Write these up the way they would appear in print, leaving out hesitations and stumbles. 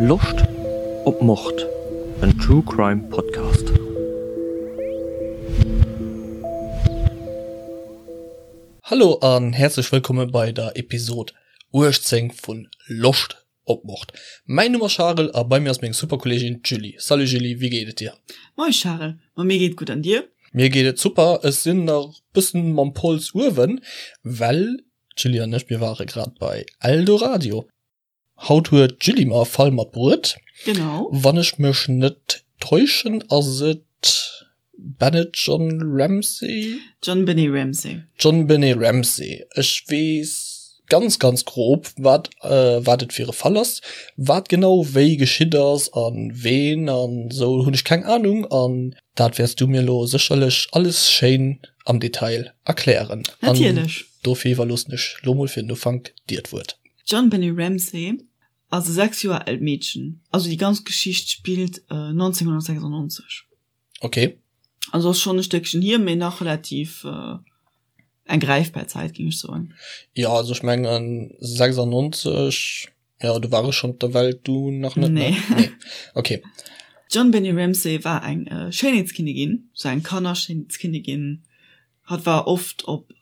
Loscht op Mord? En True Crime Podcast. Hallo an häerzlech wëllkomme bei der Episod 18 vun Loscht op Mord. Mäin Numm ass Charel a bei mir ass meng super Kolleegin d'Julie. Salut Julie, wéi geet et dir? Moin Charel, ma mir geet gutt an dir? Mir geet et super, ech sinn nach bëssen mam Pols uewen, well d'Julie an ech mir ware grad bei Eldoradio. Haut huet d'Julie mer e Fall matbruet. Genau. Wann ech mech net täuschen ass et Bennett John Ramsey? JonBenet Ramsey. JonBenet Ramsey. Ech weess ganz, ganz grob, wat, wat et fir e Fall ass. Wat genau wéi geschitt ass a ween an esou hunn ech keng Anung. An dat wäers du mir elo sécherlech alles schéin am Detail erklären. Natierlech. An dofir iwwerloossen ech lo mol fir den Ufank dir d'Wuert. D'JonBenet Ramsey ass e 6 Joer aalt Meedchen. Also déi ganz Geschicht spillt 1996. Okay. Also ass schonn e Stéckchen hier, mee nach relativ eng gräifbar Zäit, géing ech soen. Jo, also ech mengen 96, jo do war ech schonn op der Welt, du nach net, ne? Nee. Nee, okay. D'JonBenet Ramsey war eng Schéinheetskinnigin, sou eng Kannerschéinheetskinnigin. Hatt war oft op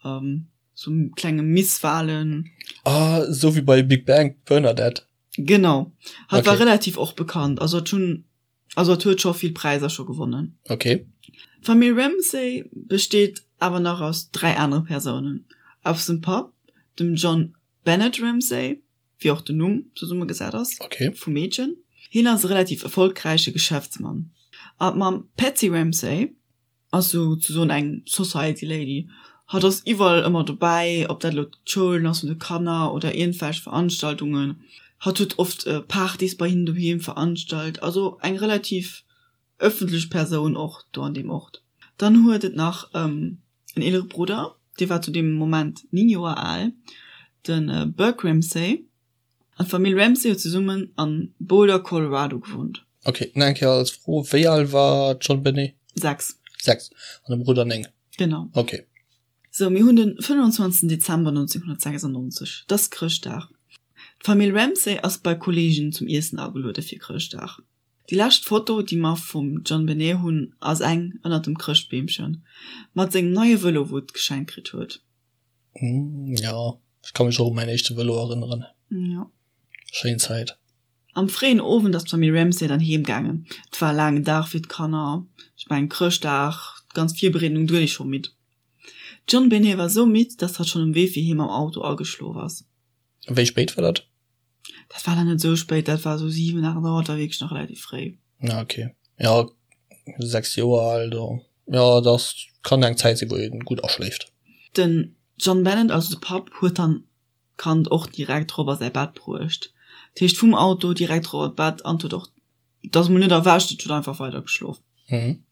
sou klenge Misswahlen. Ah, sou wéi bei Big Bang, d'Bernadette. Genau. Hatt war Okay. relativ och bekannt, also hatt hunn Also et huet scho vill Präisser scho gewonnen. Okay. D'Famill Ramsay besteet awer nach aus 3 anere Persounen, aus dem Papp, dem John Bennett Ramsay, wéi och den Numm zesummegesat ass, okay. vum Meedchen. Hien ass e relativ erfolgräiche Geschäftsmann. A d'Mamm Patsy Ramsay ass sou ze soen eng Society Lady. Hatt ass iwwerall ëmmer dobäi, ob dat elo d'Schoulen ass vun de Kanner oder iergendwelch Veranstaltungen. Hatt huet oft Partys bei hinnen doheem veranstalt, also eng relativ ëffentlech Persoun och do an deem Ort. Dann huet et nach en eelere Brudder, dee war zu deem Moment 9 Joer al, de Burke Ramsey. An d'Famill Ramsey huet zesummen an Boulder, Colorado gewunnt. Ok, nach eng Kéier als Fro, wéi al war d'JonBenet? 6. 6, an de Brudder 9? Genau. Ok. Sou, mir hunn den 25 Dezember 1996, et ass Chrëschtdag. D'Famill Ramsey ass bei Kolleegen zum Iessen ageluede fir Chrëschtdag. Déi lescht Foto, déi mer vum JonBenet hunn, ass eng ënnert dem Chrëschtbeemchen, mat sengem neie Vëlo, wou et geschenkt kritt huet. Ja, ech ka mech och u mäin éischte Vëlo erënneren. Ja. Schéin Zäit. Am fréien Owend ass d'Famill Ramsay dann heem gaangen. Et war e laangen Dag fir d'Kanner. Ech mengen, Chrëschtdag, d'ganz Virbereedung, do gëtt ee scho midd. D'JonBenet war esou midd, dass hatt schonn um Wee fir heem am Auto ageschlof ass. Wéi spéit war dat? Dat war dann net esou spéit, dat war esou 7, 8 Auer, dat war wierklech nach relativ fréi. Ah, okay. Ja, 6 Joer al, do, ja, dat kann eng Zäit sinn, wou ee gutt aschléift. Den John Bennett, also de Papp, huet dann d'Kand och direkt rop a säi Bett bruecht. Dat heescht vum Auto direkt rop an d'Bett an huet och Et ass mol net erwächt, et huet einfach weider geschlof. Mhm.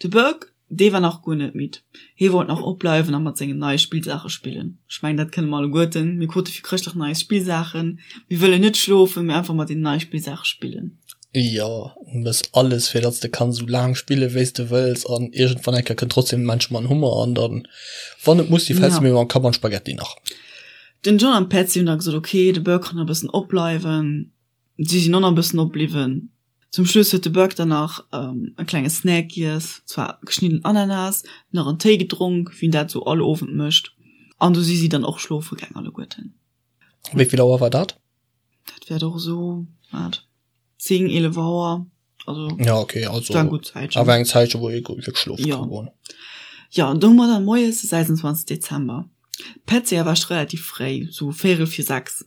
De Burke, dee war nach guer net midd. Hie wollt nach opbleiwen a mat sengen neie Spillsaache spillen. Ech mengen, dat kënne mer alleguerten, mir krute fir Chrëschtdag nei Spillsaachen, mir wëllen net schlofen, mee einfach mat deenen neie Spillsaache spillen. Jo, du mëss alles, fir datt s de kanns esou laang spille wéi s de wëlls an iergendwann eng Kéier kënnt trotzdem de Mensch mam Hummer an dann, wann et muss si, fäls de mir mam Kapp an d'Spaghetti nach. Den John an d'Patsy hunn da gesot, ok, de Burke kann nach e bëssen opbleiwen. Si sinn och nach e bëssen opbliwwen. Zum Schluss huet de Burke dann nach e klenge Snack giess, zwar geschnidden Ananas, nach en Téi gedronk, wéi en dat sou all Owend mécht, an du si si dann och schlofe gaang alleguerten. Wéi vill Auer war dat? Dat wäert och esou, wat, 10, 11 Auer, also Ja, okay, also war eng gutt Zäitchen. Awer eng Zäitchen, wou ee wierklech schlofe Jo. ka goen. Jo, an do hu mer dann moies de 26 Dezember. D'Patsy erwächt relativ fréi, sou véierel vir 6.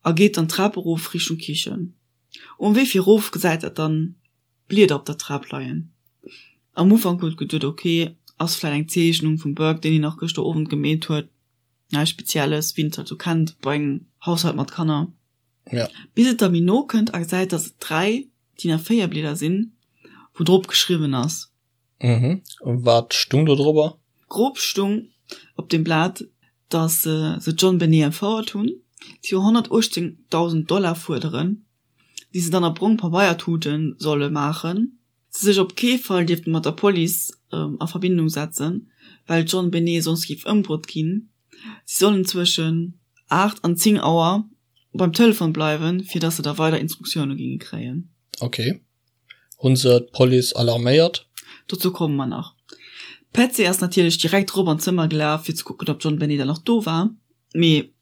A geet dann d'Trap erof Richtung Kichen. Um Wee fir erof gesäit et dann Blieder op der Trap leien. Am Ufank huet geduet ok, ass vläit eng Zeechnung vum Burke deen hien nach gëschter Owend gemeet huet, näischt spezielles wéi een et halt sou kennt bei engem Haushalt mat Kanner. Ja. Bis et da méi no kënnt a gesäit dass et 3 DIN A4 Blieder sinn wou drop geschriwwen ass. Mhm. Wat stung do drobber? Grob stung op dem Blat, dass se d'JonBenet entfouert hunn, si 118.000 Dollar fuerderen, déi se dann a brong Pabeiertuten solle maachen, se sech op kee Fall dierfte mat der Police a Verbindung setzen, well d'JonBenet soss géif ëmbruet ginn. Si sollen zwëschen 8 an 10 Auer. beim Telefon bleiwen, fir dass se da weider Instruktioune ginge kréien. Ok. Hunn se d'Police alarméiert? Dozou komme mer nach. D'Patsy ass natierlech direkt rop an d'Zëmmer gelaf, fir ze kucken, ob d'JonBenet dann nach do war, mee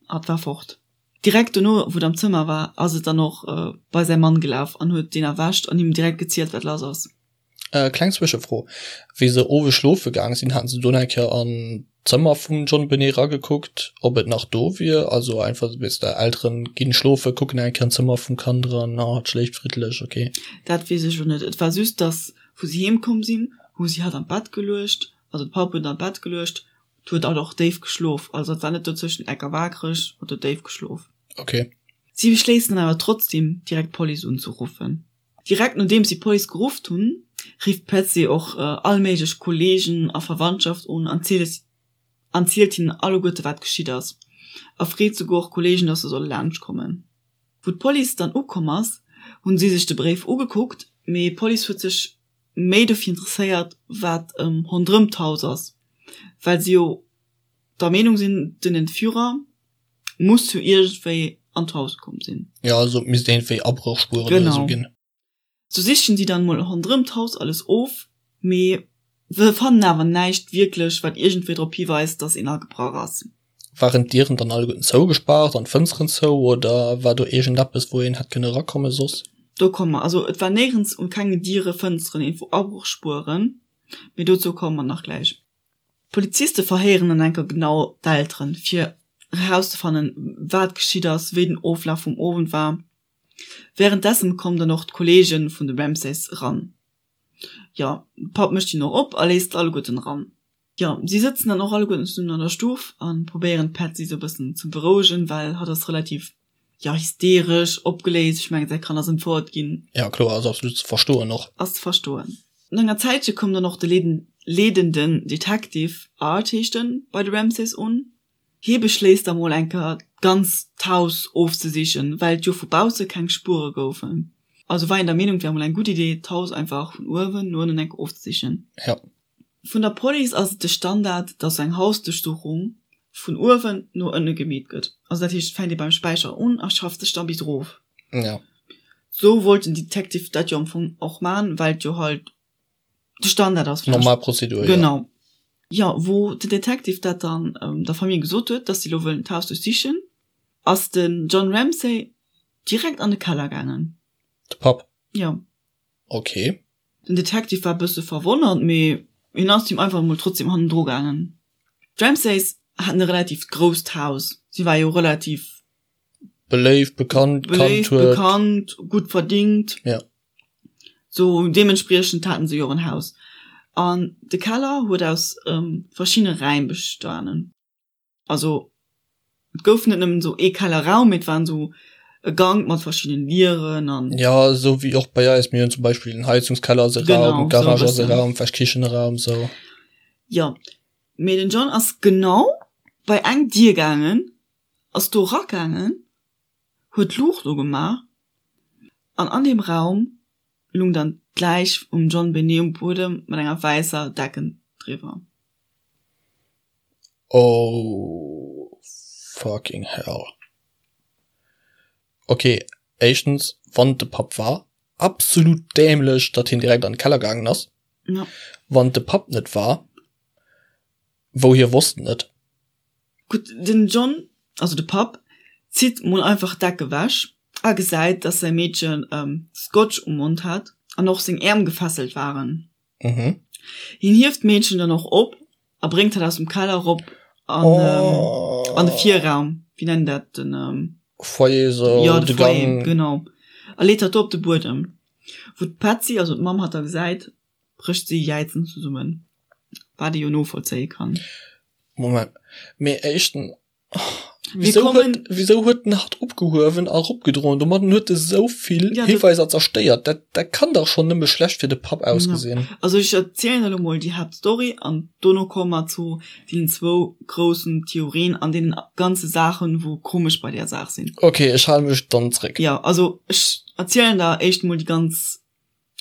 hatt war fort. Direkt dono, wou et am Zëmmer war, ass et dann och bei säi Mann gelaf an huet deen erwächt an him direkt gezielt, wat lass ass. Kleng Zwëschefro, Wéi se owes schlofe gaang sinn, haten se do nach eng Kéier an d'Zëmmer vum JonBenet eragekuckt, ob et nach do wier? Also einfach, weess de, Elteren ginn schlofe, kucken eng Kéier an d'Zëmmer vum Kand eran, ah, et schléift friddlech, ok. Dat weess ech elo net. Et war just, dass, wou si heem komm sinn, hu si hatt an d'Bett geluecht, also de Papp huet an d'Bett geluecht, et huet hatt och déif geschlof, also et war net dozwëschen ecker waakreg, hatt huet déif geschlof. Ok. Si beschléissen dann awer trotzdem, direkt d'Police unzeruffen. Direkt nodeems si d'Police gerufft hunn, rifft d'Patsy och all méiglech Kolleegen a Verwandtschaft un an zielt hinnen alleguerte wat geschitt ass a freet souguer och Kolleegen, dass se solle laanscht kommen. Wou d'Police dann ukomm ass, hunn si sech de Bréif ugekuckt, mee d'Police huet sech méi dofir interesséiert, wat ronderëm d'Haus ass, well si jo der Meenung sinn, den Entführer muss jo iergendwéi an d'Haus komm sinn. Jo, also et misst iergendwéi Abrochspueren oder esou ginn. Sou sichen si dann mol ronderëm d'Haus alles of, mee se fannen awer näischt wierklech, wat iergendwéi drop hiweist, dass een agebrach ass. Waren d'Dieren dann alleguerten zougespaart an d'Fënsteren zou oder war do iergendeppes, wou een hätt kënne erakomme soss? Do komme mer. Also et war néierens un kenge Diere, Fënsteren iergendwou Abrochspueren, mee dozou komme mer nach gläich. D'Poliziste verhéieren dann enker genau d'Elteren, fir erauszefannen, wat geschitt ass, wéi den Oflaf vum Owend war. Wärenddessen kommen dann och d'Kolleege vun de Ramsays eran. Jo, de Papp mécht hinnen och op a léisst alleguerten eran. Jo, si sëtzen dann och alleguerten zesummen an der Stuff a probéieren d'Patsy sou e bëssen ze berouegen, well hatt ass relativ, jo, hysteresch, opgeléist. Ech mengen, säi Kand ass entfouert ginn. Jo, kloer, ass absolut ze verstoen och. Ass ze verstoen. No enger Zäitche koum dann och de leedenden Detective, Art heescht en, bei de Ramsays un. Hie beschléisst da mol eng Kéier d'ganzt Haus ofzesichen, well et jo vu bausse keng Spuere goufen. Also war hien der Meenung, et wär mol eng gutt Idee, d'Haus einfach vun uewen no ënnen eng Kéier ofzesichen. Jo. Vun der Police ass et de Standard, dass eng Hausduerchsuchung vun uewen no ënne gemeet gëtt. Also dat heescht, et fänkt ee beim Späicher un a schafft sech da bis erof. Jo. Sou wollt den Detective dat jo am Fong och man, well et jo halt de Standard ass. Normal Prozedur, jo. Genau. Jo, wou den Detective dat dann der Famille gesot huet, dass si lo wëllen d'Haus duerchsichen, ass den John Ramsay direkt an de Keller gaangen. De Papp? Jo. Ok. Den Detective war e bësse verwonnert, mee hien ass him einfach emol trotzdem hannendru gaangen. D'Ramsays haten e relativt grousst Haus, si war jo relativ. Beléift, bekannt, kannt huet. Bekannt, gutt verdingt. Ja. Sou deementspriechend haten se jo och en Haus. An de Keller huet aus verschiddene Räim bestanen. Also et gouf net nëmmen esou ee Kellerraum, mee et waren esou e Gank mat verschiddenen Dieren an. Ja, esou wéi och bei eis. Mir hunn zum Beispill en Heizungskeller ass e Raum, Garage ass e Raum, vläicht Kichenraum, sou. Jo, mee den John ass genau bei eng Dier gaangen, ass do eragaangen, huet d'Luucht ugemaach an an deem Raum lung dann d'Läich vum John Benet um Buedem mat enger wäisser Decken driwwer. Oh fucking hell. Ok, éischtens, wann et de Papp war, absolut dämlech, datt hien direkt an de Keller gaangen ass. Ja. Wann et de Papp net war, wou hie wosst en et. Gutt, den John, also de Papp, zitt mol einfach d'Deck ewech a gesäit, dass säi Meedchen Scotch um Mond hat an och seng Äerm gefesselt waren. Mhm. Hien hieft d'Meedchen dann och op a bréngt hatt aus dem Keller erop an, oh. an de Virraum. Wéi nennen dat den ähm, Foyer so, ja, de Foyer, Gang. genau. A leet hatt do op de Buedem. Wou d'Patsy, also d'Mamm, hatt da gesäit, brécht si jäizend zesummen, wat ee jo novollzéie kann. Moment, mee éischten, wieso huet, wieso huet den hatt opgehuewen a eropgedroen? Domadden huet e sou vill ja, Hiweiser zerstéiert. Dat, dat kann dach schonn nëmme schlecht fir de Papp ausgesinn. Ja. Also ech erzielen elo mol déi Haaptstory an dono komme mer zu deenen zwou groussen Theorien an deenen ganze Saachen, wou komesch bei där Saach sinn. Okay, ech hale mech dann zréck. Ja, also ech erzielen der éischt mol déi ganz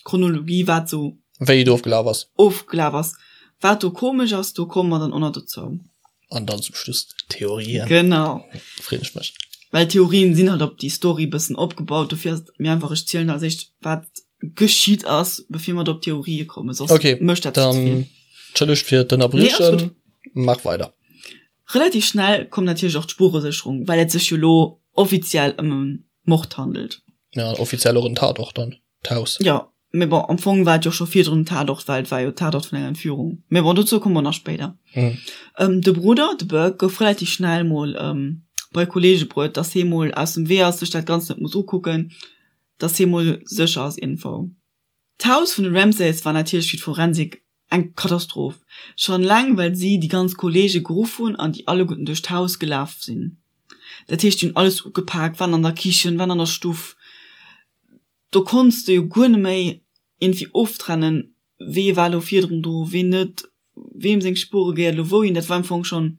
Chronologie, wat sou. Wéi et ofgelaf ass. Ofgelaf ass. Wat do komesch ass, do komme mer dann och nach dozou. An dann zum Schluss d'Theorien. Genau. Freeën ech mech. Well d'Theorien sinn halt op déi Story bëssen opgebaut, dofir ass et méi einfach ech zielen als éischt wat geschitt ass, bevir mer op d'Theorië kommen, soss okay, mécht dat ze vill. Entschëllegt fir d'Ënnerbriechen, maach weider. Relativ schnell koum natierlech och d'Spuresécherung, well et sech jo lo offiziell ëm e Mord handelt. Ja, offiziell och en Tatort dann, d'Haus. Jo, Mee bon, am Fong war et jo scho virdrun en Tatort, well et war jo Tatort vun enger Entführung. Mee bon, dozou komme mer nach spéider. De Brudder, de Burke, gouf relativ schnell mol bei Kollege bruet, dass hee mol aus dem Wee ass, sech dat Ganzt net muss ukucken, dass hee mol sécher ass iergendwou. D'Haus vun de Ramsays war natierlech fir d'Forensik eng Katastroph. Schonn eleng well si déi ganz Kollege geruff hunn an déi alleguerten duerch d'Haus gelaf sinn. Dat heescht, déi hunn alles ugepak, waren an der Kichen, waren an der Stuff. Do konns de jo guer net méi iergendwéi oftrennen, wee war elo virdrun do, ween net, weem seng Spuere gehéiert elo wouhin. Dat war am Fong schonn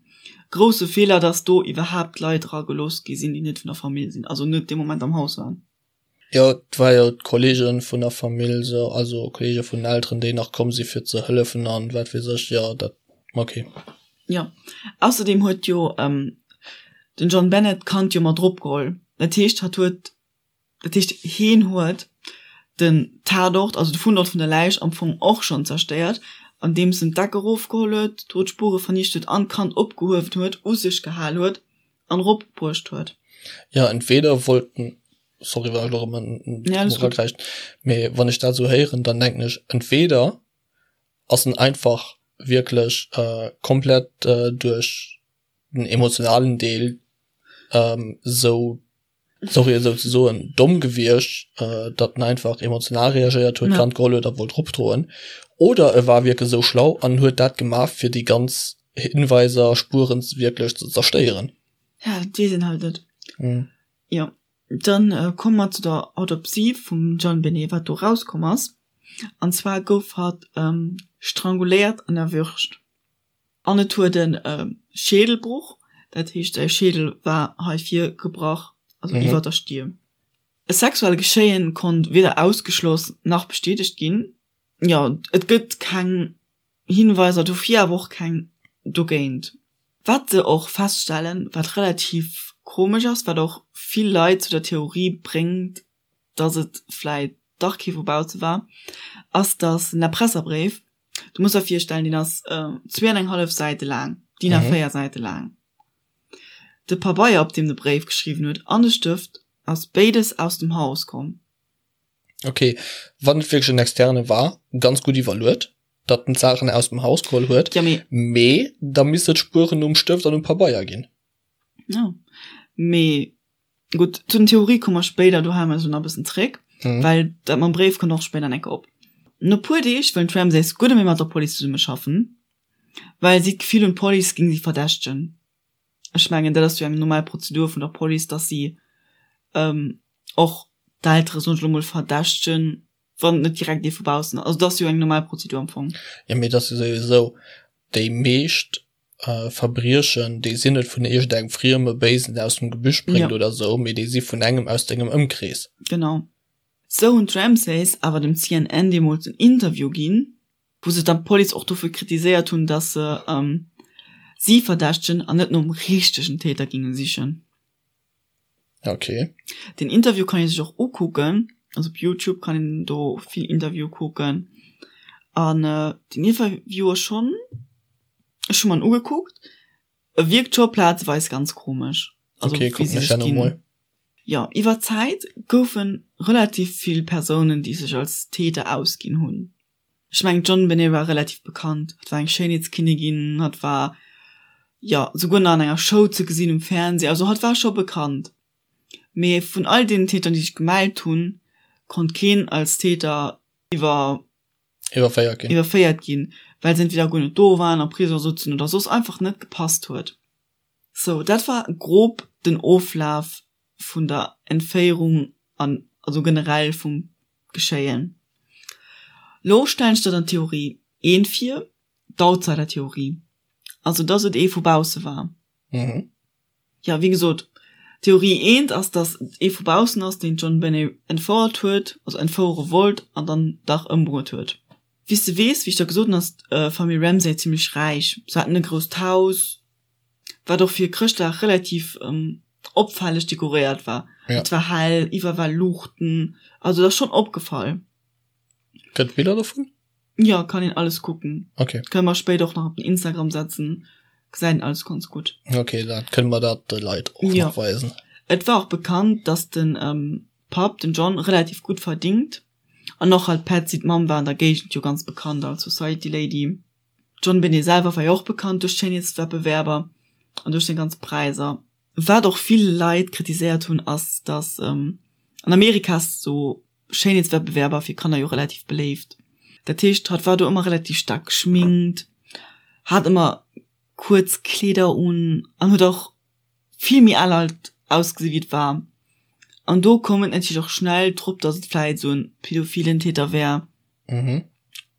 grousse Feeler, datt do iwwerhaapt Leit era gelooss gi sinn, déi net vun der Famill sinn, also net dee Moment am Haus waren. Jo, et war jo d'Kollege vun der Famill, sou, also Kollege vun den Elteren, déi nach komm si fir ze hëllefen an wat weess ech. Jo, dat, okay. Jo, ausserdeem huet jo den John Bennett d'Kand jo mat eropgeholl. Dat heescht, hatt huet Dat heescht, heen huet den Tatort, also de Fundort vun der Läich am Fong och schonn zerstéiert, andeems en d'Deck erofgeholl huet, do d'Spure vernicht huet an d'Kand opgehuewen huet, u sech gehal huet an eropbruecht huet. Jo, entweder wollt en, sorry wann ech elo erëm eragräichen, mee wann ech dat esou héieren, dann denken ech, entweder ass en einfach wierklech komplett duerch den emotionalen Deel esou sorry et esou ze soen, domm gewiescht, datt en einfach emotional reagéiert huet, d'Kand geholl huet a wollt eropdroen, oder e war wierklech esou schlau an huet dat gemaach, fir déi ganz Hinweiser, Spueren wierklech ze zerstéieren. Ja, dat weess een halt net. Jo, dann komme mer zu der Autopsie vum JonBenet, wat do erauskomm ass. An zwar gouf hatt stranguléiert an erwürgt. An et huet e Schädelbruch, dat heescht säi Schädel war hei vir gebrach, also iwwer der Stier. E sexuell Geschéien konnt weder ausgeschloss nach bestätegt ginn. Jo, et gëtt keng Hinweiser dofir, awer och keng dogéint. Wat se och feststellen, wat relativ komesch ass, wat och vill Leit zu der Theorie bréngt, dass et vläit dach kee vu bausse war, ass, dass den Erpresserbréif, du muss der virstellen, deen ass zwee an eng hallef Säite laang, DIN A4 Säite laang, de Pabeier, op deem de Bréif geschriwwen huet, an de Stëft, ass béides aus dem Haus komm. Ok, wann et wierklech en Externe war, ganz gutt iwwerluet, datt en d'Saachen aus dem Haus geholl huet, Ja, mee. Mee da misst et Spueren um Stëft an um Pabeier ginn. Jo, mee Gutt, zu den Theorie komme mer spéider, do hale mer eis elo nach e bëssen zréck, well dat mam Bréif kënnt och spéider eng Kéier op. No puer Deeg wëllen d'Ramsays guer net méi mat der Police zesummeschaffen, well si d'Gefill hunn, d'Police géing si verdächtegen. Ech mengen, dat ass jo eng normal Prozedur vun der Police, dass si och d'Eltere, soen ech elo mol, verdächtegen, wann et net direkt ee vu baussen ass. Also dat ass jo eng normal Prozedur am Fong. Jo, mee et ass jo souwisou, déi meescht Verbriechen, déi sinn net vun iergendengem frieme Béisen aus dem Gebüsch bréngt ja. oder sou, mee déi si vun engem aus dengem Ëmkrees. Genau. Sou hunn d'Ramsays awer dem CNN deemools en Interview ginn, wou se dann d'Police och dofir kritiséiert hunn, datt se si verdächtegen an net nom richtegen Täter géinge sichen. Okay. Den Interview kann ee sech och ukucken, also op Youtube kann een do vill Interviewe kucken. An den Interview ass schonn, ech hu mer en ugekuckt, e wierkt scho plazeweis ganz komesch. Also Okay, wéi kucken se ech sech dat ginn. emol. Jo, iwwer d'Zäit goufe relativ vill Persounen, déi sech als Täter ausginn hunn. Ech mengen d'JonBenet war relativ bekannt, hatt war eng Schéinheetskinnigin, hatt war jo souguer nach an enger Show ze gesinn um Fernseh, also hatt war scho bekannt. Mee vun all deenen Tätern déi sech gemellt hunn, konnt keen als Täter iwwer Iwwerféiert ginn. iwwerféiert ginn, well se entweder guer net do waren, am Prisong souzen oder soss einfach net gepasst huet. Sou, dat war grob den Oflaf vun der Entféierung an also generell vum Geschéien. Lo stellen ech der dann d'Theorie eent vir, d'Outsider-Theorie, also dass et ee vu bausse war. Jo, wéi gesot, Theorie eent ass, dass et ee vu baussen ass, deen d'JonBenet entfouert huet, also entfouere wollt an dann dach ëmbruet huet. Wéi s de weess, wéi ech der gesot hunn, ass d'Famill Ramsay zimmlech räich. Se haten e grousst Haus, wat och fir Chrëschtdag relativ. opfälleg dekoréiert war. Ja. Et war hell, iwwer war Luuchten, also dat ass schonn opgefall. Gëtt Biller dovun? Ja, kann een alles kucken. Okay. Kënne mer spéider och nach op den Instagram setzen, gesäit een alles ganz gutt. Okay, da kënne mer dat de Leit och Ja. nach weisen. Et war och bekannt, dass den ähm, Papp, den John, relativ gutt verdingt. An och halt d'Patsy, d'Mamm, war an der Géigend jo ganz bekannt als Society Lady. D'Jon Benet selwer war jo och bekannt duerch d'Schéinheetswettbewerber an duerch seng ganz Präiser. Wat och vill Leit kritiséiert hunn, ass, dass an Amerika ass sou Schéinheetswettbewerber fir Kanner jo relativ beléift. Dat heescht, hatt war do ëmmer relativ staark geschminkt, hat ëmmer kuerz Kleeder un an huet och vill méi al alt ausgesi wéi et war. An do koum et natierlech och schnell drop, dass et vläit esou en pädophilen Täter wär. Mhm.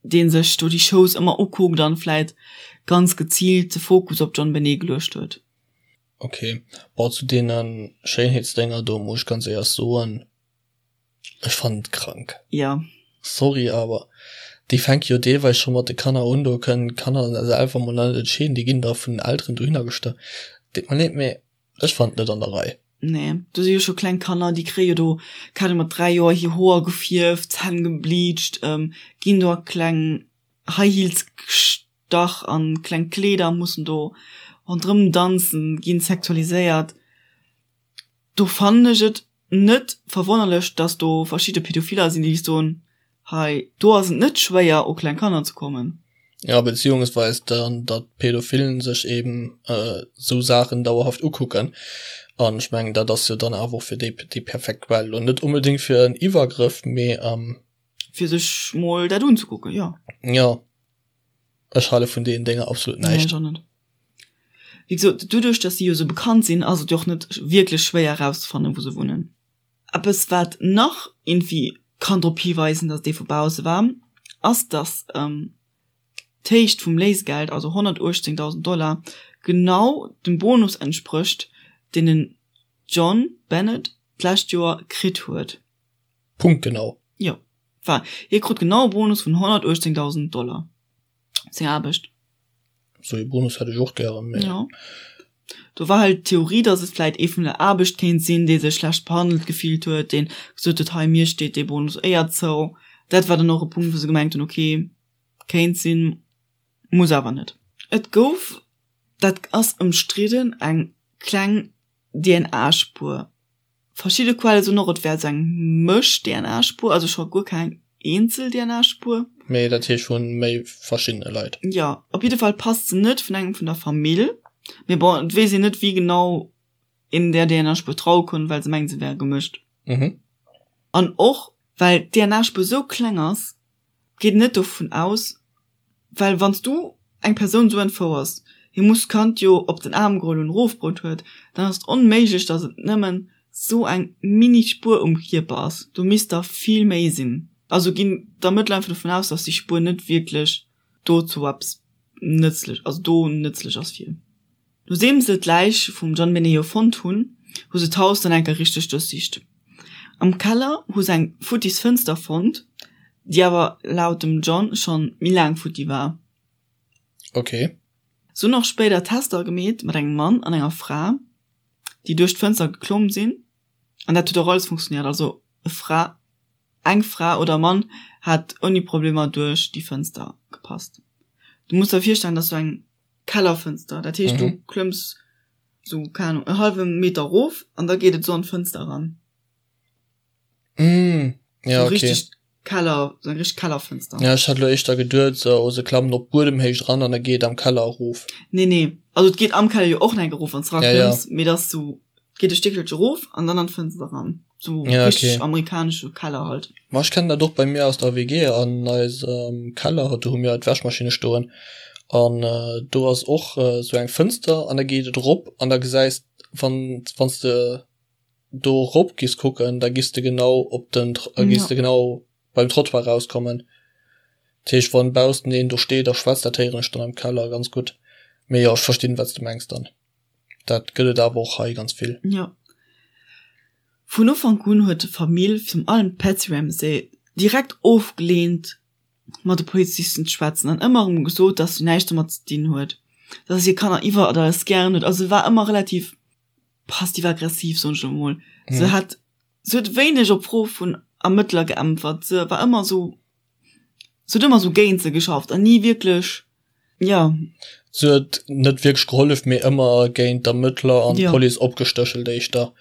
Deen sech do déi Shows ëmmer ukuckt an vläit ganz geziilt de Fokus op d'Jon Benet geluecht huet. Ok, bon zu deenen Schéinheetsdénger do muss ech ganz éierlech soen, ech fannen et krank. Jo. Sorry awer déi fänke jo deelweis scho mat de Kanner un, do kënnen d'Kanner selwer mol net entscheeden, déi ginn da vun den Elteren dohinner gestach. Deet mer leed, mee Ech fannen et net an der Rei. Nee, do si jo scho kleng Kanner, déi kréie jo do, keng Ahnung, mat 3 Joer hir Hoer gefierft, d'Zänn gebleacht, ginn do a kleng High Heels gestach an kleng Kleeder, mussen do ronderëm danzen, ginn sexualiséiert. Do fannen ech et net verwonnerlech, dass do verschidde Pädophiler sinn, déi soen, hei do ass et net schwéier u kleng Kanner ze kommen. Ja, beziehungsweis dann, datt Pädophilen sech eben esou Saachen dauerhaft ukucken. An ech mengen, dat ass jo dann awer och fir déi déi perfekt Quell. Lo net onbedéngt fir en Iwwergrëff, mee. Fir sech mol dat unzekucken, jo. Jo, ech hale vun deenen Dénger absolut näischt. Nee, ech och net. Wéi gesot, doduerch datt si jo esou bekannt sinn, ass et jo och net wierklech schwéier erauszefannen, wou se wunnen. Eppes wat nach iergendwéi kann drop hiweisen, datt et ee vu bausse war, ass datt d'Héicht vum Léisegeld, also 118.000 Dollar, genau dem Bonus entsprécht, deen den John Bennett d'lescht Joer kritt huet. Punktgenau. Jo, enfin, hie krut genau e Bonus vun 118.000 Dollar. Seng Aarbecht. Sou ee Bonus hätt ech och gären, mee. Jo. Do war halt d'Theorie, dass et vläit ee vun der Aarbecht kéint sinn, dee sech schlecht behandelt gefillt huet, deen gesot huet, hei mir steet dee Bonus éier zou. Dat war dann och e Punkt, wou se gemengt hunn, ok, kéint sinn, muss awer net. Et gouf, dat ass ëmstridden, eng kleng DNA-Spuer Verschidde Quelle soen och, et wär esou eng Mësch-DNA-Spuer, also scho guer keng eenzel DNA-Spuer. Mee dat heescht vu méi verschiddene Leit. Jo, op jidde Fall passt se net vun engem vun der Famill. Mee bon, et weess een net, wéi genau een där DNA-Spuer traue konnt, well se mengen, se wär gemëscht. An och well d'DNA-Spuer esou kleng ass, geet een net dovun aus, Well wann s du eng Persoun esou entfouers, hie muss d'Kand jo op den Aarm geholl hunn, erofbruet huet, dann ass et onméiglech, datt et nëmmen esou eng mini Spuer um Kierper ass. Do misst der vill méi sinn. Also ginn d'Ermëttler einfach dovun aus, datt déi Spuer net wierklech dozou eppes nëtzlech, also do nëtzlech ass fir. Nodeem se d'Läich vum John Meneo fonnt hunn, hu se d'Haus dann eng Kéier richteg duerchsicht. Am Keller hu se eng futtis Fënster fonnt, déi awer laut dem John schonn méi laang futti war. Ok. Se hunn och spéider Tester gemeet mat engem Mann an enger Fra, déi duerch d'Fënster geklomm sinn, an dat huet och alles funktionéiert. Also e Fra, eng Fra oder e Mann hat ouni Problemer duerch déi Fënster gepasst. Du muss der virstellen, dass du eng Kellerfënster, dat heescht du klëmms sou, keng Ahnung, e hallwe Meter erof an da geet et sou an d'Fënster eran. Mm, ja, So okay. richteg Keller, sou eng richteg Kellerfënster. Ja, ech hat elo éischter geduet, sou se klammen op Buedemhéicht eran an da geet et am Keller erof. Nee, nee, also et geet am Keller jo och nach eng erof, wann s Ja, ja. eraklëmms, mee et ass sou, geet e Stéckelche erof an dann an d'Fënster eran. Sou Ja, richteg okay. amerikanesche Keller halt. Ma ech kennen dat och bei mir aus der WG an eisem Keller, do hu mir d'Wäschmaschinne stoen an do ass och sou eng Fënster an da geet et erop an da gesäis wann wann s de do erop giss kucken, da giss de genau op den giss de genau beim Trottoir rauskommen. Dat heescht wann baussen een do steet a schwätzt, dat héieren ech dann am Keller ganz gutt. Mee jo, ech verstinn wat s de mengs dann. Dat gëtt et awer och hei ganz vill. Jo. Vun Ufank un huet d'Famill, virun allem d'Patsy Ramsey, direkt ofgeleent, mat de Polizisten ze schwätzen an ëmmer erëm gesot, dass si näischt domat ze dinn huet, dass si hir Kanner iwwer alles gären huet. Also se war ëmmer relativ. passiv-aggressiv, soen ech elo mol. Se hat, se huet wéineg op Froe vun Ermëttler geäntwert. Se war ëmmer esou, se huet ëmmer esou géint se geschafft an ni wierklech, jo. Se huet net wierklech gehollef, mee ëmmer géint d'Ermëttler an d'Police opgestéchelt éischter.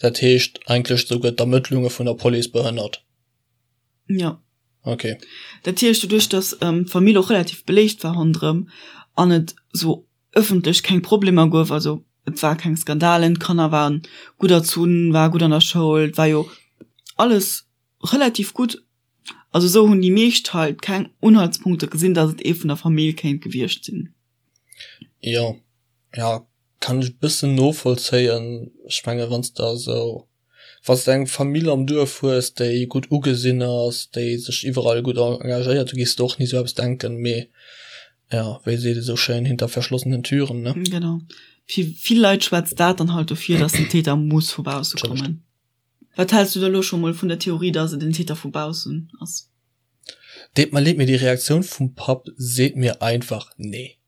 Dat heescht eigentlech souguer d'Ermëttlunge vun der Police behënnert. Jo. Ok. Dat heescht, doduerch datt d'Famill och relativ beléift war ronderëm an et esou ëffentlech keng Problemer gouf, also et war keng Skandalen, d'Kanner waren gutt erzunn, war gutt an der Schoul, et war jo alles relativ gutt. Also esou hunn déi meescht halt keng Unhaltspunkte gesinn, datt et ee vun der Famill kéint gewiescht sinn. Jo, jo, kann ech e bëssen novollzéien. Ech menge wann s de esou Wann s de eng Famill am Duerf hues, déi gutt ugesinn ass, déi sech iwwerall gutt engagéiert, du gees de och ni sou eppes denken. Mee jo, wéi seet ee sou schéin, hinter verschlossenen Türen, ne? Genau. Fir vill Leit schwätzt dat dann halt dofir, dass den Täter muss vu bausse kommen. Wat häls du da lo scho mol vun der Theorie, dass et en Täter vu baussen ass? Deet mer leed, mee déi Reaktioun vum Papp seet mir einfach nee.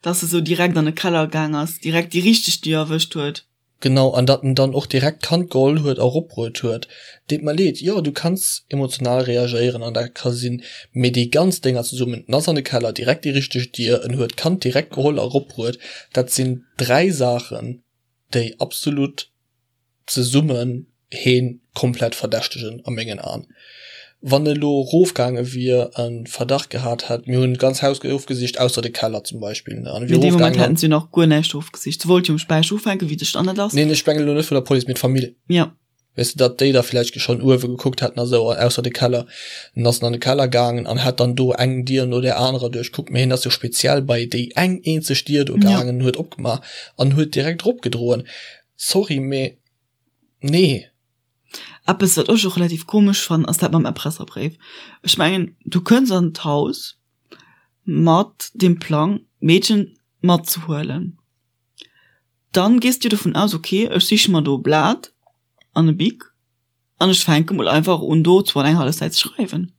Dass e sou direkt an de Keller gaang ass, direkt déi richteg Dier erwëscht huet. Genau, an datt en dann och direkt d'Kand geholl huet a eropbruet huet. Deet mer leed, jo, du kanns emotional reagéieren an dat ka sinn, mee déi ganz Dénger zesummen, en ass an de Keller, direkt déi richteg Dier, en huet d'Kand direkt geholl a eropbruet, dat sinn 3 Saachen, déi absolut zesummen heen komplett verdächtegen a mengen Aen. Wann e lo rofgaange wier, e Verdacht gehat hätt, mir hunn d'ganz Haus ofgesicht, ausser de Keller zum Beispill, ne, an e wier Mee dee Moment hätten se jo nach guer näischt ofgesicht. Se wollt jo um Späicher ufänken, wéi de Standard ass. Neen, ech mengen elo net vun der Police, mee d'Famill. Jo. Weess de, datt déi da vläicht schonn uewe gekuckt hätten a sou, ausser de Keller. En ass an de Keller gaangen an hätt dann do eng Dier no där anerer duerchkuckt, mee hien ass jo speziell bei déi eng eenzeg Dier do gaangen, huet opgemaach an huet direkt eropgedroen. Sorry, mee nee. Eppes wat ech och relativ komesch fannen ass dat mam Erpresserbréif. Ech mengen du kënns an d'Haus mat dem Plang d'Meedchen matzehuelen. Dann gees du dovun aus ok ech siche mer do e Blat an e Bic an ech fänke mol einfach un do zwou an eng hallef Säit ze schreiwen.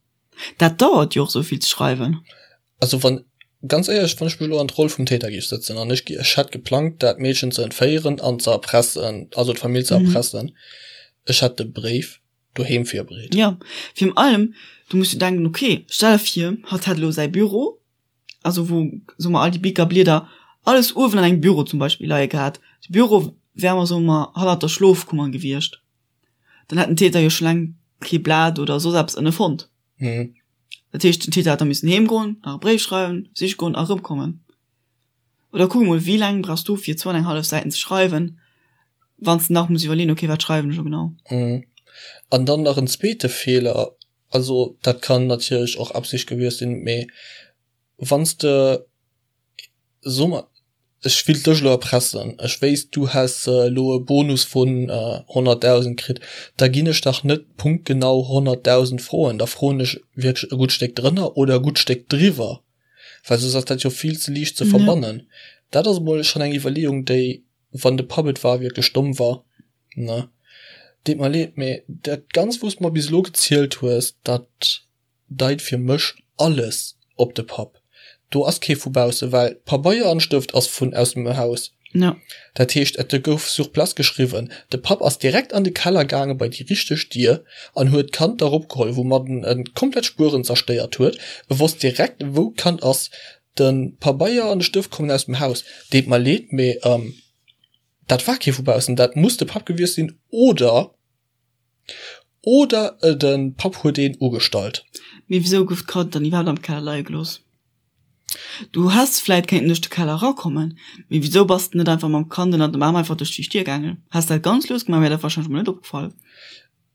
Dat dauert jo och sou vill ze schreiwen. Also wann, ganz éierlech, wann ech mech elo an d'Roll vum Täter géif sëtzen an ech, ech hätt geplangt dat Meedchen ze entféieren an ze erpressen, also d'Famill ze erpressen, ech hätt de Bréif doheem virbereet. Jo, virun allem, du muss jo denken, ok, stell der vir, hatt hätt elo säi Büro, also wou, soe mer, all déi Bicker, Blieder, alles uewen an engem Büro zum Beispill leie gehat. De Büro wär mer, soe mer, hannert der Schlofkummer gewiescht. Dann hätt den Täter jo scho laang kee Blat oder soss eppes ënne fonnt. Mhm. Dat heescht, den Täter hätt da missen heem goen, nach e Bréif schreiwen, siche goen a erëmkommen. Oder kuck emol, wéi laang brauchs du fir zwou an eng hallef Säiten ze schreiwen, wann s de nach muss iwwerleeën, okay, wat schreiwen ech elo genau? Mhm. An dann nach en zweete Feeler, also dat kann natierlech och Absicht gewiescht sinn, mee wann s de So mer, ech willt dech elo erpressen, ech wéisst du häss elo e Bonus vun 100.000 kritt, da ginn ech dach net punktgenau 100.000 froen, da froen ech wierklech e gutt Stéck drënner oder e gutt Stéck driwwer, well soss ass dat jo vill ze liicht ze verbannen. Dat ass emol schonn eng Iwwerleeung, déi, wann de Papp et war, wierklech domm war, ne? Deet mer leed, mee dat Ganzt, wou s de mer bis elo gezielt hues, dat deit fir mech alles op de Papp. Do ass kee vu bausse, well Pabeier an Stëft ass vun aus dem Haus. Ja. Dat heescht, et gouf sur place geschriwwen. De Papp ass direkt an de Keller gaange bei déi richteg Dier an huet d'Kand da ropgeholl, woumat en en komplett Spueren zerstéiert huet. E wosst direkt, wou d'Kand ass. De Pabeier an de Stëft kommen aus dem Haus. Deet mer leed, mee dat war kee vu baussen. Dat muss de Papp gewiescht sinn oder Oder de Papp huet een ugestallt. Mee wisou gouf d'Kand dann iwwerhaapt am Keller leie gelooss? Du häss vläit kéinten duerch de Keller erakommen, mee wisou bass de net einfach mam Kand ënnert dem Aarm einfach duerch déi Stier gaangen? Häss dat ganz lues gemaach, wär dat warscheinlech mol net opgefall.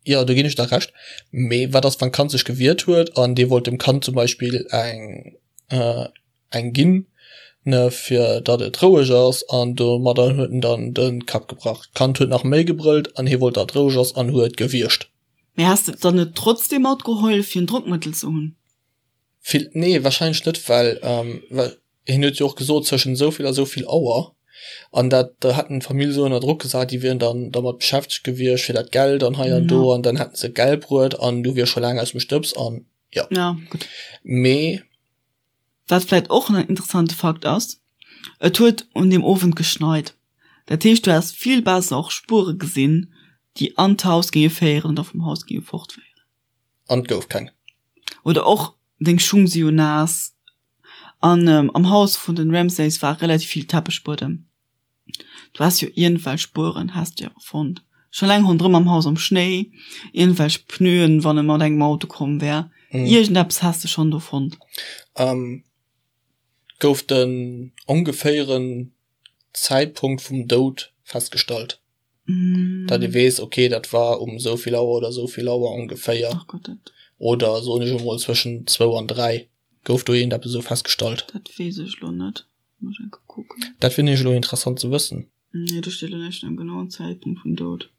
Jo, do ginn ech der Recht. Mee wat ass, wann d'Kand sech gewiert huet an dee wollt dem Kand zum Beispill eng eng ginn, ne, fir datt et roueg ass, an domadder huet en dann de Kapp gebrach. D'Kand huet nach méi gebrëllt an hie wollt, datt et roueg ass an huet gewierscht. Mee häss de et dann net trotzdem matgeholl, fir en Drockmëttel ze hunn? Vill, nee, wahrscheinlech net, well, well hien huet jo och gesot, zwëschen esou vill a esou vill Auer, an dat, da hätten d'Famill esou ënner Drock gesat, déi wieren dann dermat beschäftegt gewiescht fir dat Geld an hei an do, an dann hätten se Geld bruet an du wiers scho laang aus dem Stëbs an jo. Ja, gutt. Mee. Wat vläit och en interessante Fakt ass, Et huet un deem Owend geschneit. Dat heescht, du häss vill besser och Spuere gesinn, déi an d'Haus géinge féieren oder vum Haus géinge fortféieren. An et gouf keng. Oder och deng Schung si jo naass. An am Haus vun den Ramsays war relativ vill Teppechbuedem. Du häss jo iergendwelch Spueren häss de jo fonnt. Scho laang ronderëm am Haus am Schnéi, iergendwelch Pneuen, wann e mat engem Auto komm wär. Iergendeppes häss de schonn do fonnt. Gouf den ongeféieren Zäitpunkt vum Doud festgestallt? Datt ee weess, okay, dat war um esou vill Auer oder esou vill Auer ongeféier. Ach Gott, dat. Oder soen ech emol zwëschen zwou an 3. Gouf do iergendeppes esou festgestallt? Dat weess ech elo net. Muss ech eng Kéier kucken. Dat wier nämlech elo interessant ze wëssen. Nee, do steet elo näischt vun engem genauen Zäitpunkt vum Doud.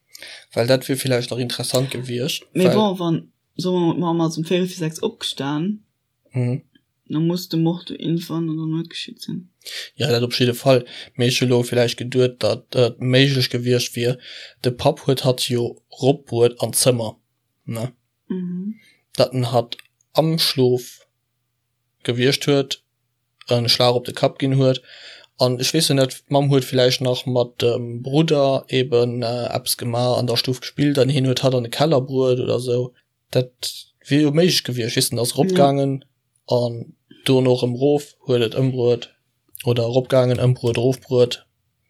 Well dat wier villäicht nach interessant gewiescht. Mee bon, wann, soe mer, d'Mamm ass um véierel vir 6 opgestan. Mhm. Da muss de Mord jo iergendwann an der Nuet geschitt sinn. Jo, dat op jidde Fall. Mee ech hu lo villäicht geduet, datt et méiglech gewiescht wier, de Papp huet hatt jo ropbruet an d'Zëmmer, ne? Mhm. Datt en hatt am Schlof gewiescht huet, en Schlag op de Kapp ginn huet. An ech weess jo net, d'Mamm huet villäicht nach mat dem Brudder eben eppes gemaach, an der Stuff gespillt an hien huet hatt an de Keller bruet oder sou. Dat wier jo méiglech gewiescht, weess den ass eropgaangen an dono erëm erof, huet et ëmbruet oder eropgaangen, ëmbruet, erofbruet,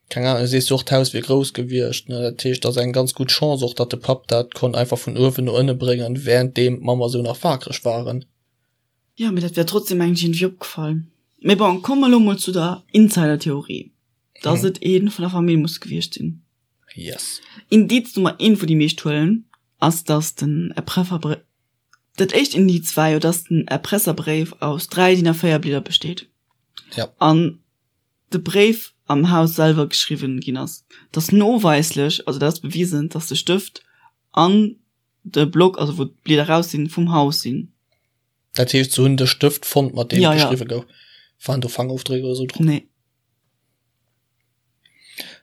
keng Ahnung. Du sees jo och d'Haus wier grouss gewiescht, ne, dat heescht ass eng ganz gutt Chance och, datt de Papp dat konnt einfach vun uewen no ënne bréngen, wärenddeem d'Mamm a sou nach wakereg waren. Jo, mee dat wär trotzdem mengen ech iergendwéi opgefall. Mee bon, komme mer elo mol zu der Insider-Theorie, datt et ee vun der Famill muss gewiescht sinn. Yes. Indiz Nummer eent, wou déi meescht huelen, ass dass den Erprefferbréif, dat éischt Indiz war jo, dass den Erpresserbréif aus 3 DIN A4 Blieder besteet. Ja. An de Bréif am Haus selwer geschriwwen ginn ass. Dass noweislech, also dat ass bewisen, dass de Stëft an de Block, also wou d'Blieder raus sinn, vum Haus sinn. Dat heescht, se hunn de Stëft fonnt, mat deem Ja, ja. geschriwwe gouf. Waren do Fangofdréck oder sou drop? Nee.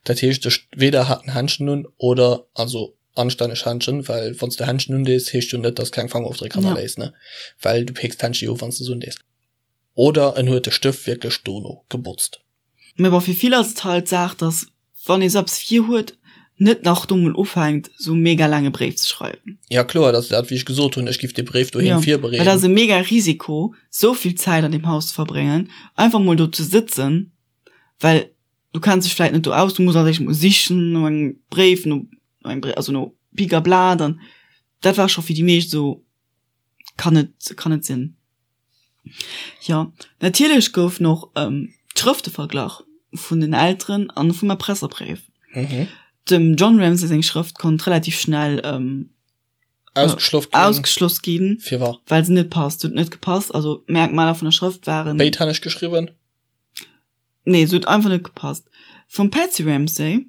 Dat heescht, ech weder hat en Händschen un oder, also anstänneg Händschen, well wann s de Händschen undees, heescht jo net, dass keng Fangofdréck hannerléiss, ne? Well du peeks d'Händschen jo of, wann s de se undees. Oder en huet de Stëft wierklech dono gebotzt. Mee bon, fir vill ass et halt d'Saach, dass wann ee sou eppes virhuet, net nach do mol ufänkt, sou mega laange Bréif ze schreiwen. Ja kloer, dat ass dat wéi ech gesot hunn, ech giff dee Bréif doheem virbereeden. Well dat ass e mega Risiko, sou vill Zäit an deem Haus ze verbréngen, einfach mol do ze sëtzen, well du kenns dech vläit net do aus, du muss als éischt mol sichen no engem Bréif, no engem Bréif, also no Pik a Blat an dat war scho fir déi meescht esou, kann net, kann net sinn. Jo, natierlech goufen och d'Schrëfte verglach vun den Elteren an vum Erpresserbréif. Dem John Ramsay seng Schrëft konnt relativ schnell Ausgeschloss ginn. Ausgeschloss ginn. Firwat? Well se net passt, huet net gepasst. Also d'Merkmaler vun der Schrëft waren. Béidhänneg geschriwwen? Nee, se huet einfach net gepasst. Vum Patsy Ramsay,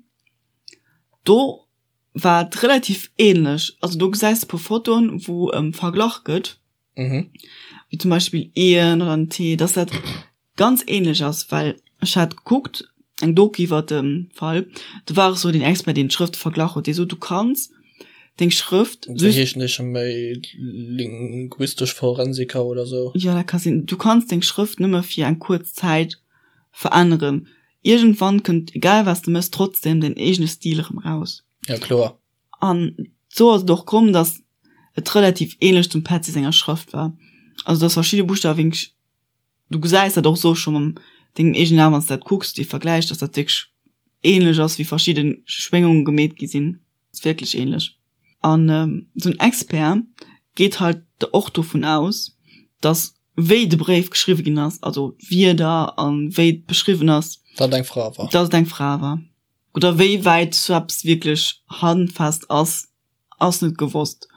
do war et relativ ähnlech. Also do gesäis de e puer Fotoen, wou verglach gëtt. Mhm. Wéi zum Beispill Eeën oder en Tee, dass dat ganz ähnlech ass, well ech hat gekuckt, eng Doku iwwer de Fall, do war och sou den Expert, deen d'Schrëfte verglach huet, dee sot, du kanns deng Schrëft Wéi heeschen déi scho méi linguistesch Forensiker oder sou? Jo, dat ka sinn. Du kanns deng Schrëft nëmme fir eng kuerz Zäit veränneren. Iergendwann kënnt, egal wat s de méchs, trotzdem däin eegene Stil erëm raus. Ja, kloer. An sou ass et och komm, dass et relativ ähnlech zum Petzi senger Schrëft war. Also dass verschidde Buschtawe wierklech, du gesäis dat och sou scho mam dengem eegenen A wann s de dat kucks, dee Vergläich, dass dat wierklech ähnlech ass, wéi verschidde Schwéngunge gemeet gi sinn. Ass wierklech ähnlech. An sou en Expert geet halt och dovun aus, dass wéi de Bréif geschriwwe ginn ass, also d'Wierder an wéi et beschriwwen ass, Dass et eng Fra war. Dass et eng Fra war. Oder wéi wäit sou eppes wierklech handfest ass, ass net gewosst.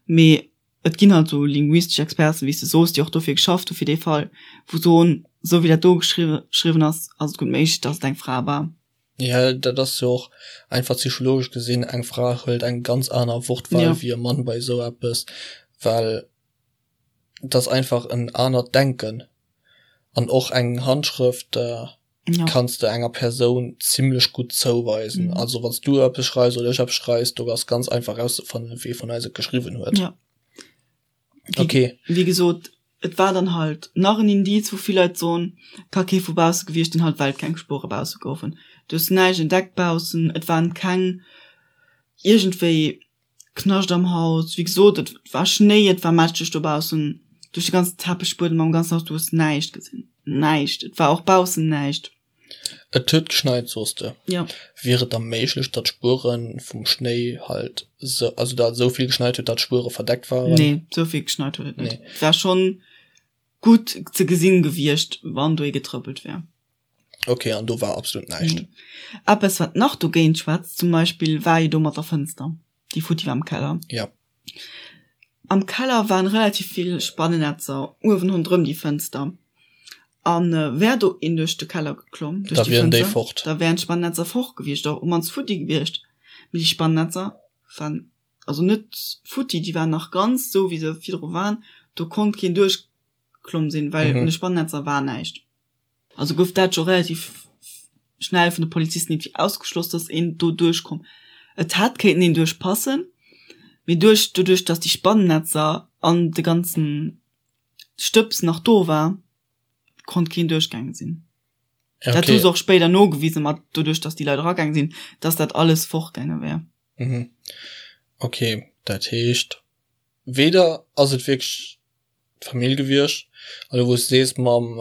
Mee et ginn halt sou linguistesch Experten, wéi s de soos, déi och dofir geschafft hu fir dee Fall, wou soen, sou wéi dat do geschriwwen ass, ass et gutt méiglech, datt et eng Fra war. Jo, dat ass jo och einfach psychologesch gesinn, eng Fra hëlt eng ganz aner Wortwahl wéi e Mann bei esou eppes, well et ass einfach en anert Denken an och eng Handschrëft. ja. kanns de enger Persoun zimmlech gutt zouweisen. Mhm. Also wanns du eppes schreifs oder ech eppes schreifs, do ass ganz einfach rauszefannen, wee vun eis et geschriwwen huet. Ja. Wie, okay. Wie gesot, et war dann halt nach en Indiz, wou vill Leit soen, ka kee vu bausse gewiescht sinn, halt well keng Spuere bausse goufen. Du hues näischt entdeckt baussen, et waren keng iergendwéi Knascht am Haus. Wéi gesot, et war Schnéi, et war mätscheg dobaussen, duerch de ganzen Teppechbuedem am ganzen Haus, du hues näischt gesinn, näischt. Et war och baussen näischt. Et huet geschneit, soos de. Jo. Wier et da méiglech, datt d'Spuere vum Schnéi halt sou, also datt et esou vill geschneit huet, datt d'Spuere verdeckt waren? Nee, esou vill geschneit huet et net. Nee. Et war schonn gutt ze gesinn gewiescht, wann do ee getrëppelt wär. Ok, an do war absolut näischt? Nee. Eppes, wat nach dogéint schwätzt, zum Beispill, war jo do mat der Fënster, déi futti war am Keller. Jo. Am Keller waren relativ vill Spannennetzer uewen ronderëm déi Fënster. An wär do een duerch de Keller geklomm, duerch déi Fënster, déi fort. da wären d'Spannennetzer fort gewiescht, oder op mannst futti gewiescht. Mee déi Spannennetzer waren also net futti, déi waren nach ganz esou wéi se virdru waren. Do konnt keen duerchgeklomm sinn, well un de Spannennetzer war näischt. Also gouf dat scho relativ schnell vun de Polizisten irgendwie ausgeschloss, dass een do duerchkomm. Et hätt kéinten een duerchpassen, mee duerch doduerch, dass déi Spannennetzer an de ganzen Stëbs nach do war, konnt keen duerchgaange sinn. Ja, Dat hu okay. se och spéider nogewisen, mat doduerch, dass déi Leit eragaange sinn, dass dat alles fortgaange wär. Mhm. Okay, dat heescht, weder ass et wierklech d'Famill gewiescht, an elo wou s de sees mam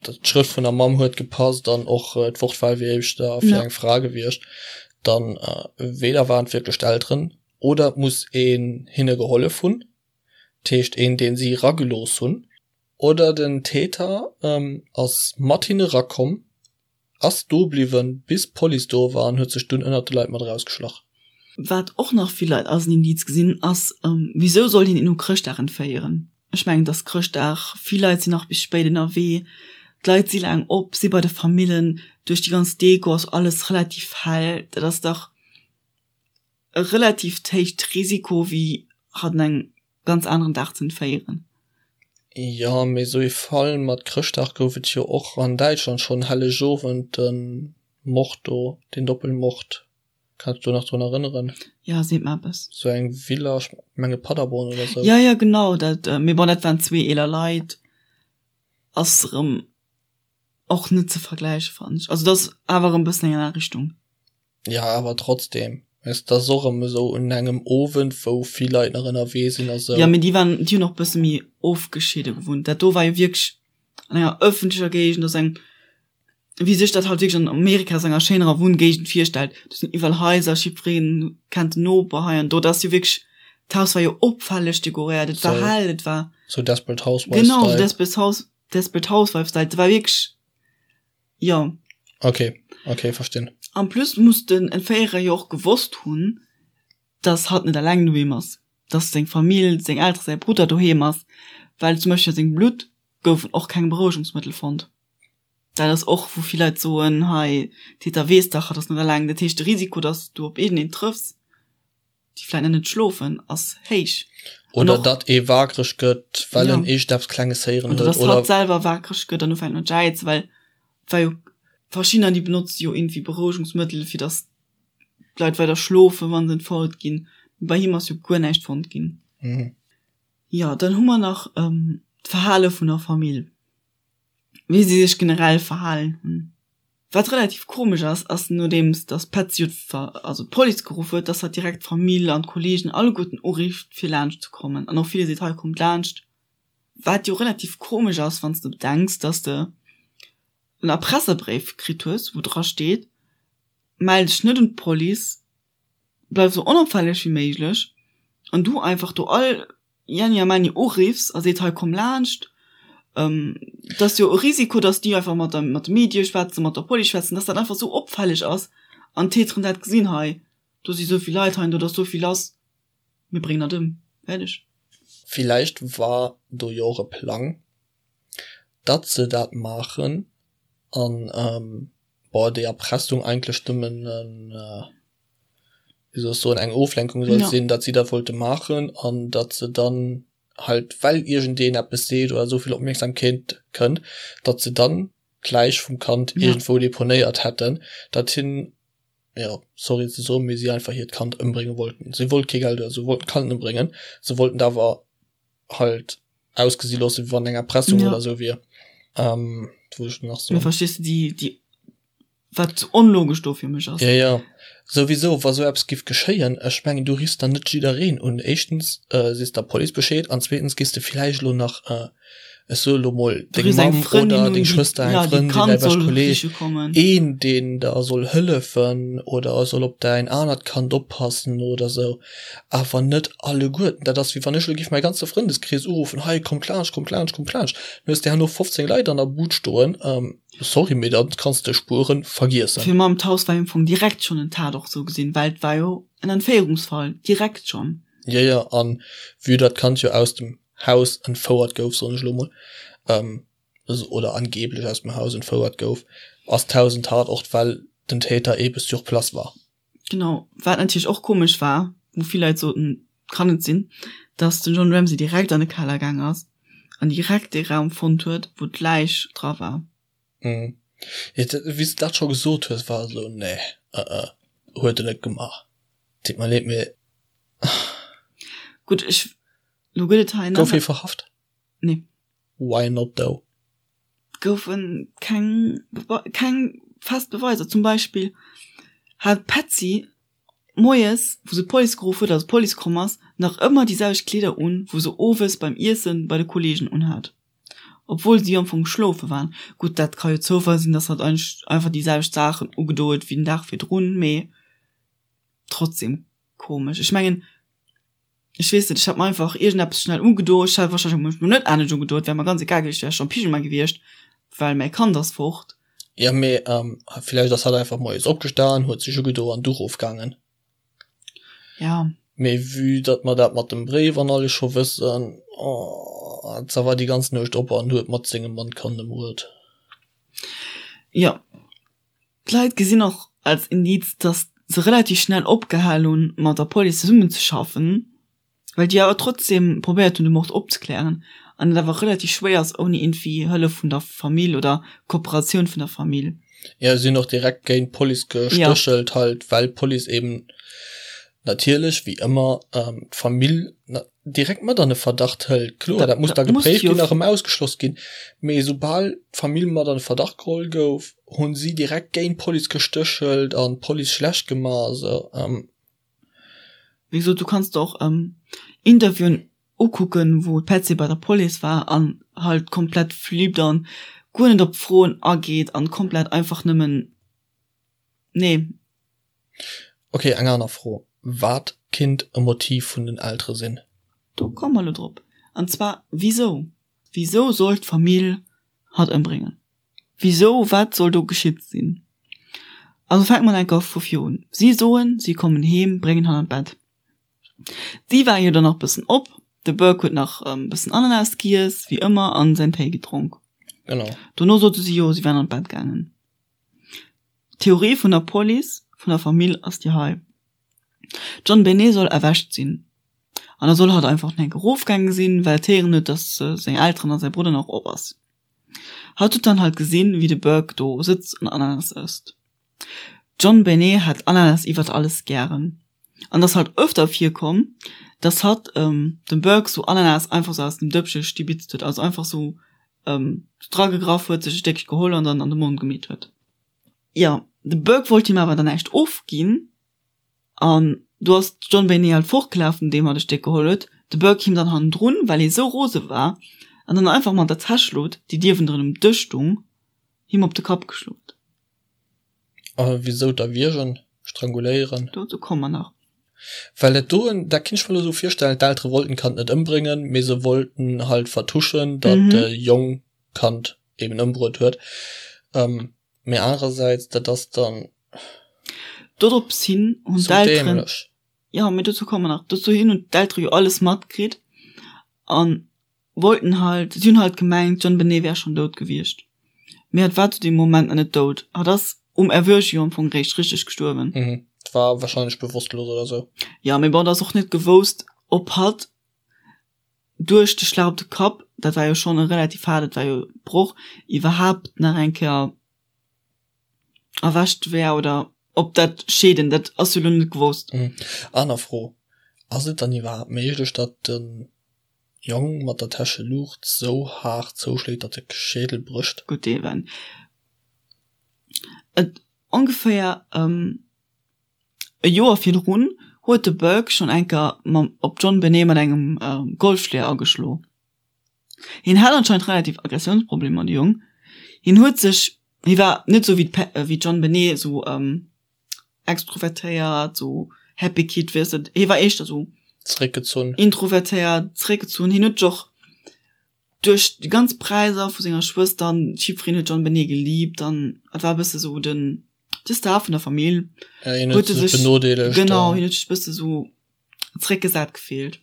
d'Schrëft vun der Mamm huet gepasst an och d'Wortwahl wier éischter fir eng Fra gewiescht, dann weder waren et wierklech d'Elteren oder et muss een hinne gehollef hunn, dat heescht een deen si eragelooss hunn, oder den Täter ass mat hinne erakomm Ass do bliwwen bis d'Police do war an huet sech dunn ënnert de Leit mat erausgeschlach. Wat och nach vill Leit als en Indiz gesinn ass, Wisou sollt een een u Chrëschtdag entféieren? Ech mengen, et ass Chrëschtdag, vill Leit sinn nach bis spéit ënnerwee, d'Leit si laang op, si bei de Famillen, duerch déi ganz Deko ass alles relativ hell. Dat ass dach e relativt héicht Risiko wéi hatt un engem ganz aneren Dag ze entféieren. Jo, mee esou ee Fall mat Chrëschtdag gouf et jo och an Däitschland schonn, Hellegowend, de Mord do, deen Doppelmord, kanns dech do nach drun erënneren? Jo, seet mer eppes. Sou eng Villa, ech menge Paderborn oder sou. Jo, jo, genau, dat, mee bon, dat waren zwee eeler Leit, ass erëm och net ze vergläichen, fannen ech. Also dat ass awer erëm e bëssen eng aner Richtung. Ja, awer trotzdem, weess, dat ass och erëm esou un engem Owend, wou vill Leit nach ënnerwee sinn a sou. Ja, mee déi waren, déi hunn och bësse méi ofgeschidde gewunnt. Dat do war jo wierklech an enger ëffentlecher Géigend, ass eng, wéi sech dat halt wierklech an Amerika ass enger schéinerer Wunngéigend virstellt. Do sinn iwwerall Haiser, jiddwereen kennt den Noper hei an do. Dat ass jo wierklech, d'Haus war jo opfälleg dekoréiert, et war hell, et war. Sou Desperate Housewives-Style. Genau, sou Desperate House, Desperate Housewives-Style. Et war wierklech. Jo. Okay, okay, verstinn. En plus muss den Entféierer jo och gewosst hunn, dass hatt net eleng doheem ass, dass seng Famill, seng Elteren, säi Brudder doheem ass, well zum Beispill a sengem Blutt goufen och keng Berouegungsmëttel fonnt. Dat ass och, wou vill Leit soen, hei, Täter weess dach, hatt ass net eleng. Dat heescht, de Risiko, dass du op iergendeen trëffs, déi vläit nach net schlofen, ass héich. Oder datt ee waakreg gëtt, well en iergendeppes Klenges héieren huet. Oder datt hatt selwer waakreg gëtt an ufänkt mat jäizen, well et war jo, verschiddener déi benotze jo iergendwéi Berouegungsmëttel, fir datt d'Leit weider schlofen, wa se entfouert ginn. Bei him ass jo guer näischt fonnt ginn. Jo, dann hu mer nach d'Verhale vun der Famill. wéi si sech generell verhalen hunn. Wat relativ komesch ass, ass nodeems dass d'Patsy jo also d'Police geruff huet, dass hatt direkt d'Famill an d'Kollegen alleguerten urifft fir laanscht ze kommen an och ville seet hei kommt laanscht. Wat jo relativ komesch ass wann s de bedenks, dass de en Erpresserbréif kritt hues wou dra steet, mell dech net un d'Police, bleif esou onopfälleg wéi méiglech an du einfach do all Jenni a Menni uriffs a seet hei komm laanscht. Et ass jo e Risiko, datt déi einfach mat der mat de Medie schwätzen, mat der Police schwätzen, datt dat einfach esou opfälleg ass an d'Täteren dat gesinn, hei do si souvill Leit, hei an do ass souvill lass, mir bréngen dat ëm, fäerdeg. Villäicht war do jo och e Plang, datt se dat maachen an bon déi Erpressung eigentlech nëmmen en, wéi soll ech soen, eng Oflenkung sollt sinn, datt si dat wollte maachen an datt se dann halt, well iergendeen eppes seet oder esou vill Opmierksamkeet kënnt, datt se dann d'Läich vum Kand iergendwou deponéiert hätten, datt hien, jo, sorry ze soen, mee si einfach hiert Kand ëmbrénge wollten. Si wollt kee Geld oder sou, wollten d'Kand ëmbréngen, se wollten et awer halt ausgesi loossen, wéi wann eng Erpressung oder sou wier. Wat wollt ech nach soen? Mee verstees de déi, déi. Wat onlogesch do fir mech ass. Jo, jo. Souwisou, wa sou eppes giff geschéien, ech mengen, du riffs dann net jiddereen un. Éischtens sees der Police Bescheed an zweetens giss de villäicht elo nach, ech soe lo mol, deng Mamm oder deng Schwëster, eng Frëndin, däi beschte Kolleeg, een, deen der soll hëllefen oder soll op däin anert Kand oppassen oder sou. Awer net alleguerten. Dat ass wéi wann ech elo giff mäi ganze Frëndeskrees uruffen, Hei, kommt laanscht, kommt laanscht, kommt laanscht. Dann hues de herno 15 Leit an der Bud stoen. Sorry, mee dann kanns de Spueren vergiessen. Fir mam d'Haus war jo am Fong direkt schonn en Tatort sou gesinn, well et war jo en Entféierungsfall direkt schonn. Jo, jo, an vue datt d'Kand jo aus dem Haus entfouert gouf, soen ech elo mol, oder angeblech aus dem Haus entfouert gouf, ass d'Haus en Tatort, well den Täter ebe sur place war. Genau, wat natierlech och komesch war, wou vill Leit soten, kann net sinn, datt den John Ramsey direkt an de Keller gaang ass an direkt dee Raum fonnt huet, wou d'Läich dra war. Mhm. Ja, wéi s de dat scho gesot hues, war esou, nee, uh uh, huet en net gemaach. Deet mer leed, mee. Gutt, ech, lo gëtt et hei nach. Gouf hie verhaft? Nee. Why not though? Goufe keng keng fest Beweiser. Zum Beispill hat d'Patsy moies, wou se d'Police geruff huet, also d'Police komm ass, nach ëmmer déi selwecht Kleeder un, wou se owes beim Iesse bei de Kolleegen unhat, obwuel si am Fong schlofe waren. Gutt, dat ka jo Zoufall sinn, dass hatt einfach déi selwecht Saachen ugedo huet wéi den Dag virdrun, mee trotzdem komesch. Ech mengen. Ech weess net, ech hat mer einfach iergendeppes schnell ugedo. Ech hat wahrscheinlech mech net anescht ugedo, et wär mer ganz egal gewiescht, ech wär scho am Pyjama gewiescht, well mäi Kand ass fort. Jo, mee villäicht ass hatt einfach moies opgestan, huet sech ugedo an du rofgaangen. Ja. Mee vue datt mer dat mat dem Bréif an alles scho wëssen, oh, se war déi ganz Nuecht op an huet mat sengem Mann d'Kand ëmbruet. Jo. D'Leit gesinn och als Indiz, datt se relativ schnell opgehal hunn, mat der Police zesummenzeschaffen, well déi awer trotzdeem probéiert hunn, de Mord opzeklären an et awer relativ schwéier ass ouni iergendwéi Hëllef vun der Famill oder Kooperatioun vun der Famill. Jo, si hunn och direkt géint d'Police gestéchelt halt, well d'Police eben natierlech wéi ëmmer d'Famill direkt mat an de Verdacht hëlt. Kloer, dat muss da gepréift ginn a rëm ausgeschloss ginn, mee soubal d'Famill mat an de Verdacht geholl gouf, hunn si direkt géint d'Police gestéchelt an d'Police schlecht gemaach a sou. Wéi gesot, du kanns der och Interviewen ukucken, wou d'Patsy bei der Police war an halt komplett flippt an guer net op d'Froen ageet an komplett einfach nëmmen, nee. Ok, eng aner Fro, Wat kinnt e Motiv vun den Eltere sinn? Do komme mer elo drop. An zwar, wisou? Wisou soll d'Famill hatt ëmbréngen? Wisou? Wat soll do geschitt sinn? Also fänke mer enker vu vir un. Si soen, si kommen heem, bréngen hatt an d'Bett. Si war jo dann nach bëssen op, de Burke huet nach e bëssen Ananas giess, wéi ëmmer, an säin Téi gedronk. Genau. Dono sote si jo, si wären an d'Bett gaangen. D'Theorie vun der Police, vun der Famill ass déi hei, D'JonBenet soll erwächt sinn an da soll hatt einfach nach eng Kéier erofgaange sinn, well et héieren huet, datt seng Elteren a säi Brudder nach op ass. Hatt huet dann halt gesinn, wéi de Burke do sëtzt an Ananas ësst. D'JonBenet hat Ananas iwwert alles gären an et ass halt öfter virkomm, datt hatt dem Burke sou Ananas einfach sou aus dem Dëppche stibitzt huet, also einfach sou dragegraff huet, sech e Stéckche geholl an dann an de Mond gemeet huet. Jo, de Burke wollt him awer dann näischt ofginn an do ass d'JonBenet halt fortgelaf, nodeem hatt e Stéck geholl huet, de Burke him dann hannendrun, well hie sou rose war, an dann einfach mat der Täschlot, déi dierwendrun um Dësch stung, him op de Kapp geschloen. A wisou d'erwiergen, stranguléieren? Dozou komme mer nach. Well dat doen, dat kinnt ech mer elo sou virstellen, d'Eltere wollten d'Kand net ëmbréngen, mee se wollten halt vertuschen, datt de Jong d'Kand eben ëmbruet huet. Mee anerersäits, dat ass dann Dorops hin hunn d'Elteren, jo, mee dozou komme mer nach, dozou hin hunn d'Eltere jo alles matkritt an wollten halt, si hunn halt gemengt, d'JonBenet wär schonn dout gewiescht. Mee hatt war zu deem Moment nach net dout. Hatt ass um Erwueche jo am Fong réischt richteg gestuerwen. Mhm, war wahrscheinlech bewosstlos oder sou. Jo, mee bon, et ass och net gewousst, ob hatt duerch de Schlag op de Kapp, dat war jo schonn e relativ haart, et war jo e Broch, iwwerhaapt nach eng Kéier erwächt wär oder ob dat Scheeden, dat ass jo elo net gewosst. Mhm. Aner Fro, Ass et dann iwwerhaapt méiglech, datt de Jong mat der Täsche Luucht sou haart zouschléit, datt de Schädel brécht. Gutt, dee wenn et. Ongeféier e Joer virdrun huet de Burke schonn eng Kéier mam op d'JonBenet mat engem Golfschléier ageschlo. Hien hat anscheinend relativ Aggressiounsproblemer, de Jong. Hien huet sech, hie war net esou wéi wéi d'JonBenet esou extrovertéiert, esou happy kid, weess de, hie war éischter esou Zeréckgezunn. introvertéiert, zeréckgezunn. Hien huet sech och duerch déi ganz Präiser vu senger Schwëster an jiddwereen huet d'JonBenet geliebt an et war e bësse sou den de Star vun der Famill. Ja, hien huet sech benodeelegt. Genau, hien huet sech e bësse sou zeréckgesat gefillt.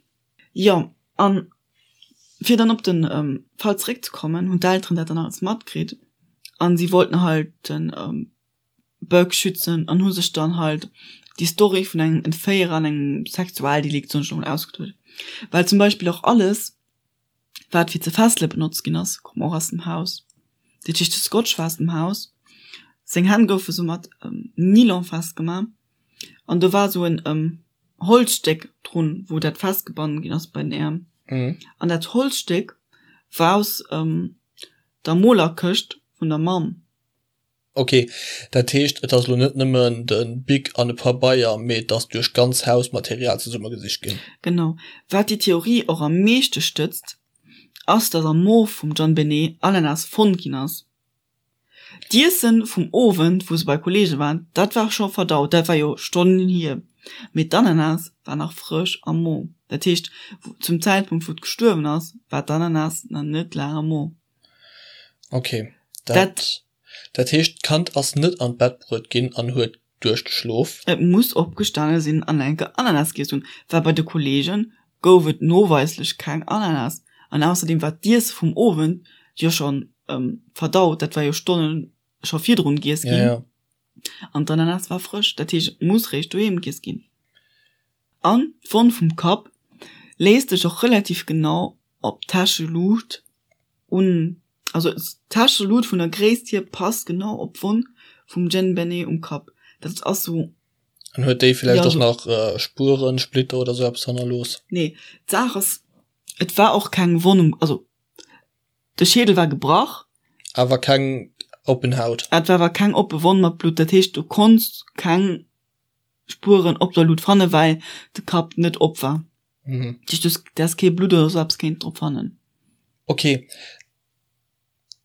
Jo, an fir dann op den Fall zeréckzekommen, hunn d'Elteren dat dann alles matkritt an si wollten halt den Burke schützen an hu sech dann halt déi Story vun engem Entféierer an engem Sexualdelikt soen ech elo mol ausgeduet. Well zum Beispill och alles wat fir ze fessele benotzt ginn ass, koum och aus dem Haus. Dat heescht de Scotch war aus dem Haus, seng Hänn goufe sou mat Nylon festgemaach an do war sou en Holzstéck drun, wou dat festgebannen ginn ass bei den Äerm. An dat Holzstéck war aus der Molerkëscht vun der Mamm. Ok, dat heescht et ass elo net nëmmen de Bic an e Pabeier, mee et ass duerch d'ganz Haus Material zesummegesicht ginn. Genau. Wat déi Theorie och am meeschte stëtzt, ass datt am Mo vum JonBenet Ananas fonnt ginn ass. D'Iessen vum Owend, wou se bei Kollege waren, dat war scho verdaut, dat war jo Stonnen hier, mee d'Ananas war nach frësch am Mo. Dat heescht, zum Zäitpunkt wou et gestuerwen ass, war d'Ananas nach net laang am Mo. Ok, dat dat heescht d'Kand ass net an d'Bett bruet ginn an huet duerchgeschlof? Et muss opgestane sinn an enke Ananas giess hunn, well bei de Kollege gouf et noweislech keng Ananas an ausserdeem war d'Iesse vum Owend jo scho verdaut, dat war jo Stonnen scho virdrun giess ginn an d'Ananas war frësch, dat heescht et muss réischt doheem giess ginn. An d'Wonn vum Kapp léisst sech och relativ genau op d'Täscheluucht un, also d'Täscheluut vun der Gréisst hier passt genau op d'Wonn vum JonBenet um Kapp. Dat ass sou. An huet déi villäicht och nach Spueren, Splitter oder sou eppes hannerlooss? Nee, d'Saach ass, et war och keng Wonn um, also de Schädel war gebrach. Awer keng oppen Haut? Et war awer keng oppe Wonn mat Blutt, dat heescht du konns keng Spueren op der Luut fannen, well de Kapp net op war. Mhm. Dat heescht, du häss kee Blutt oder sou eppes kéinten drop fannen. Ok,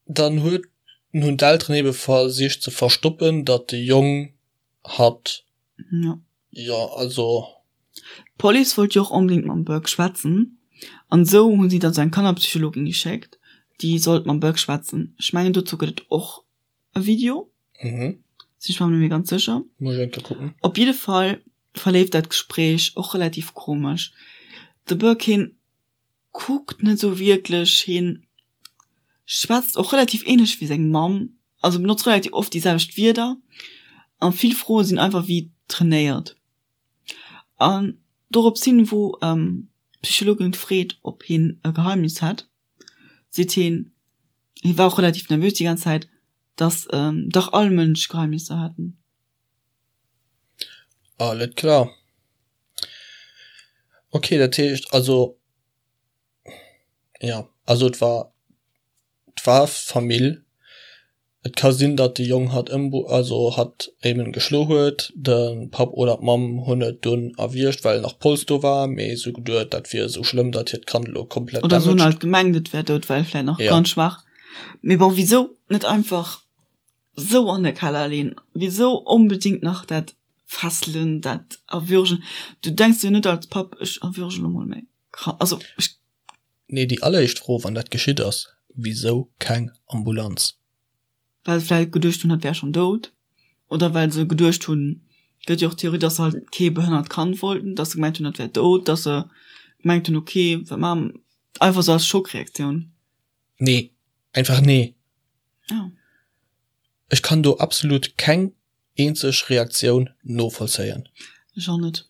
dann huet hunn d'Elteren ebe versicht ze verstoppen, datt de Jong hatt. Ja. Jo, also. D'Police wollt jo och onbedéngt mam Burke schwätzen an esou hu si dann sou eng Kannerpsychologin geschéckt, déi sollt mam Burke schwätzen. Ech mengen dozou gëtt et och e Video. Mhm. Sinn ech mer net méi ganz sécher. Muss ech eng Kéier kucken. Op jidde Fall verleeft dat Gespréich och relativ komesch. De Burke hien kuckt net sou wierklech, hien schwätzt och relativ ähnlech wéi seng Mamm, also benotzt relativ oft déi selwecht Wierder a vill Froe sinn einfach wéi trainéiert. An dorops hin, wou d'Psychologin freet, ob hien e Geheimnis hätt, seet hien, hie war och relativ nervös déi ganz Zäit, dass dach all Mënsch Geheimnisser hätten. Alles klar. Okay, dat heescht also, jo, also et war, et war Famill. Et ka sinn, datt de Jong hatt ëmbru, also hatt eben geschlo huet. De Papp oder d'Mamm hunn et dunn erwiergt, well nach Polz do war, mee se hu geduet, dat wier esou schlëmm, datt hiert Kand elo komplett Oder se hunn halt gemengt, et wär dout, well vläit nach ganz schwaach. Mee bon, wisou net einfach sou an de Keller leen? Wisou onbedingt nach dat fesselen, dat erwürgen? Du denks jo net als Papp, ech erwürge lo mol mäi Kand, also ech. Nee, déi alleréischt Fro, wann dat geschitt ass, Wisou keng Ambulanz? Well se vläicht geduecht hunn, hatt wär schonn dout. Oder well se geduecht hunn, gëtt jo och d'Theorie, dass se halt kee behënnert Kand wollten, dass se gemengt hunn, dat wär dout, dass se gemengt hunn, okay, wat maache mer? Einfach sou als Schockreaktioun. Nee, einfach nee. Ja. Ech kann do absolut keng eenzeg Reaktioun novollzéien. Ech och net.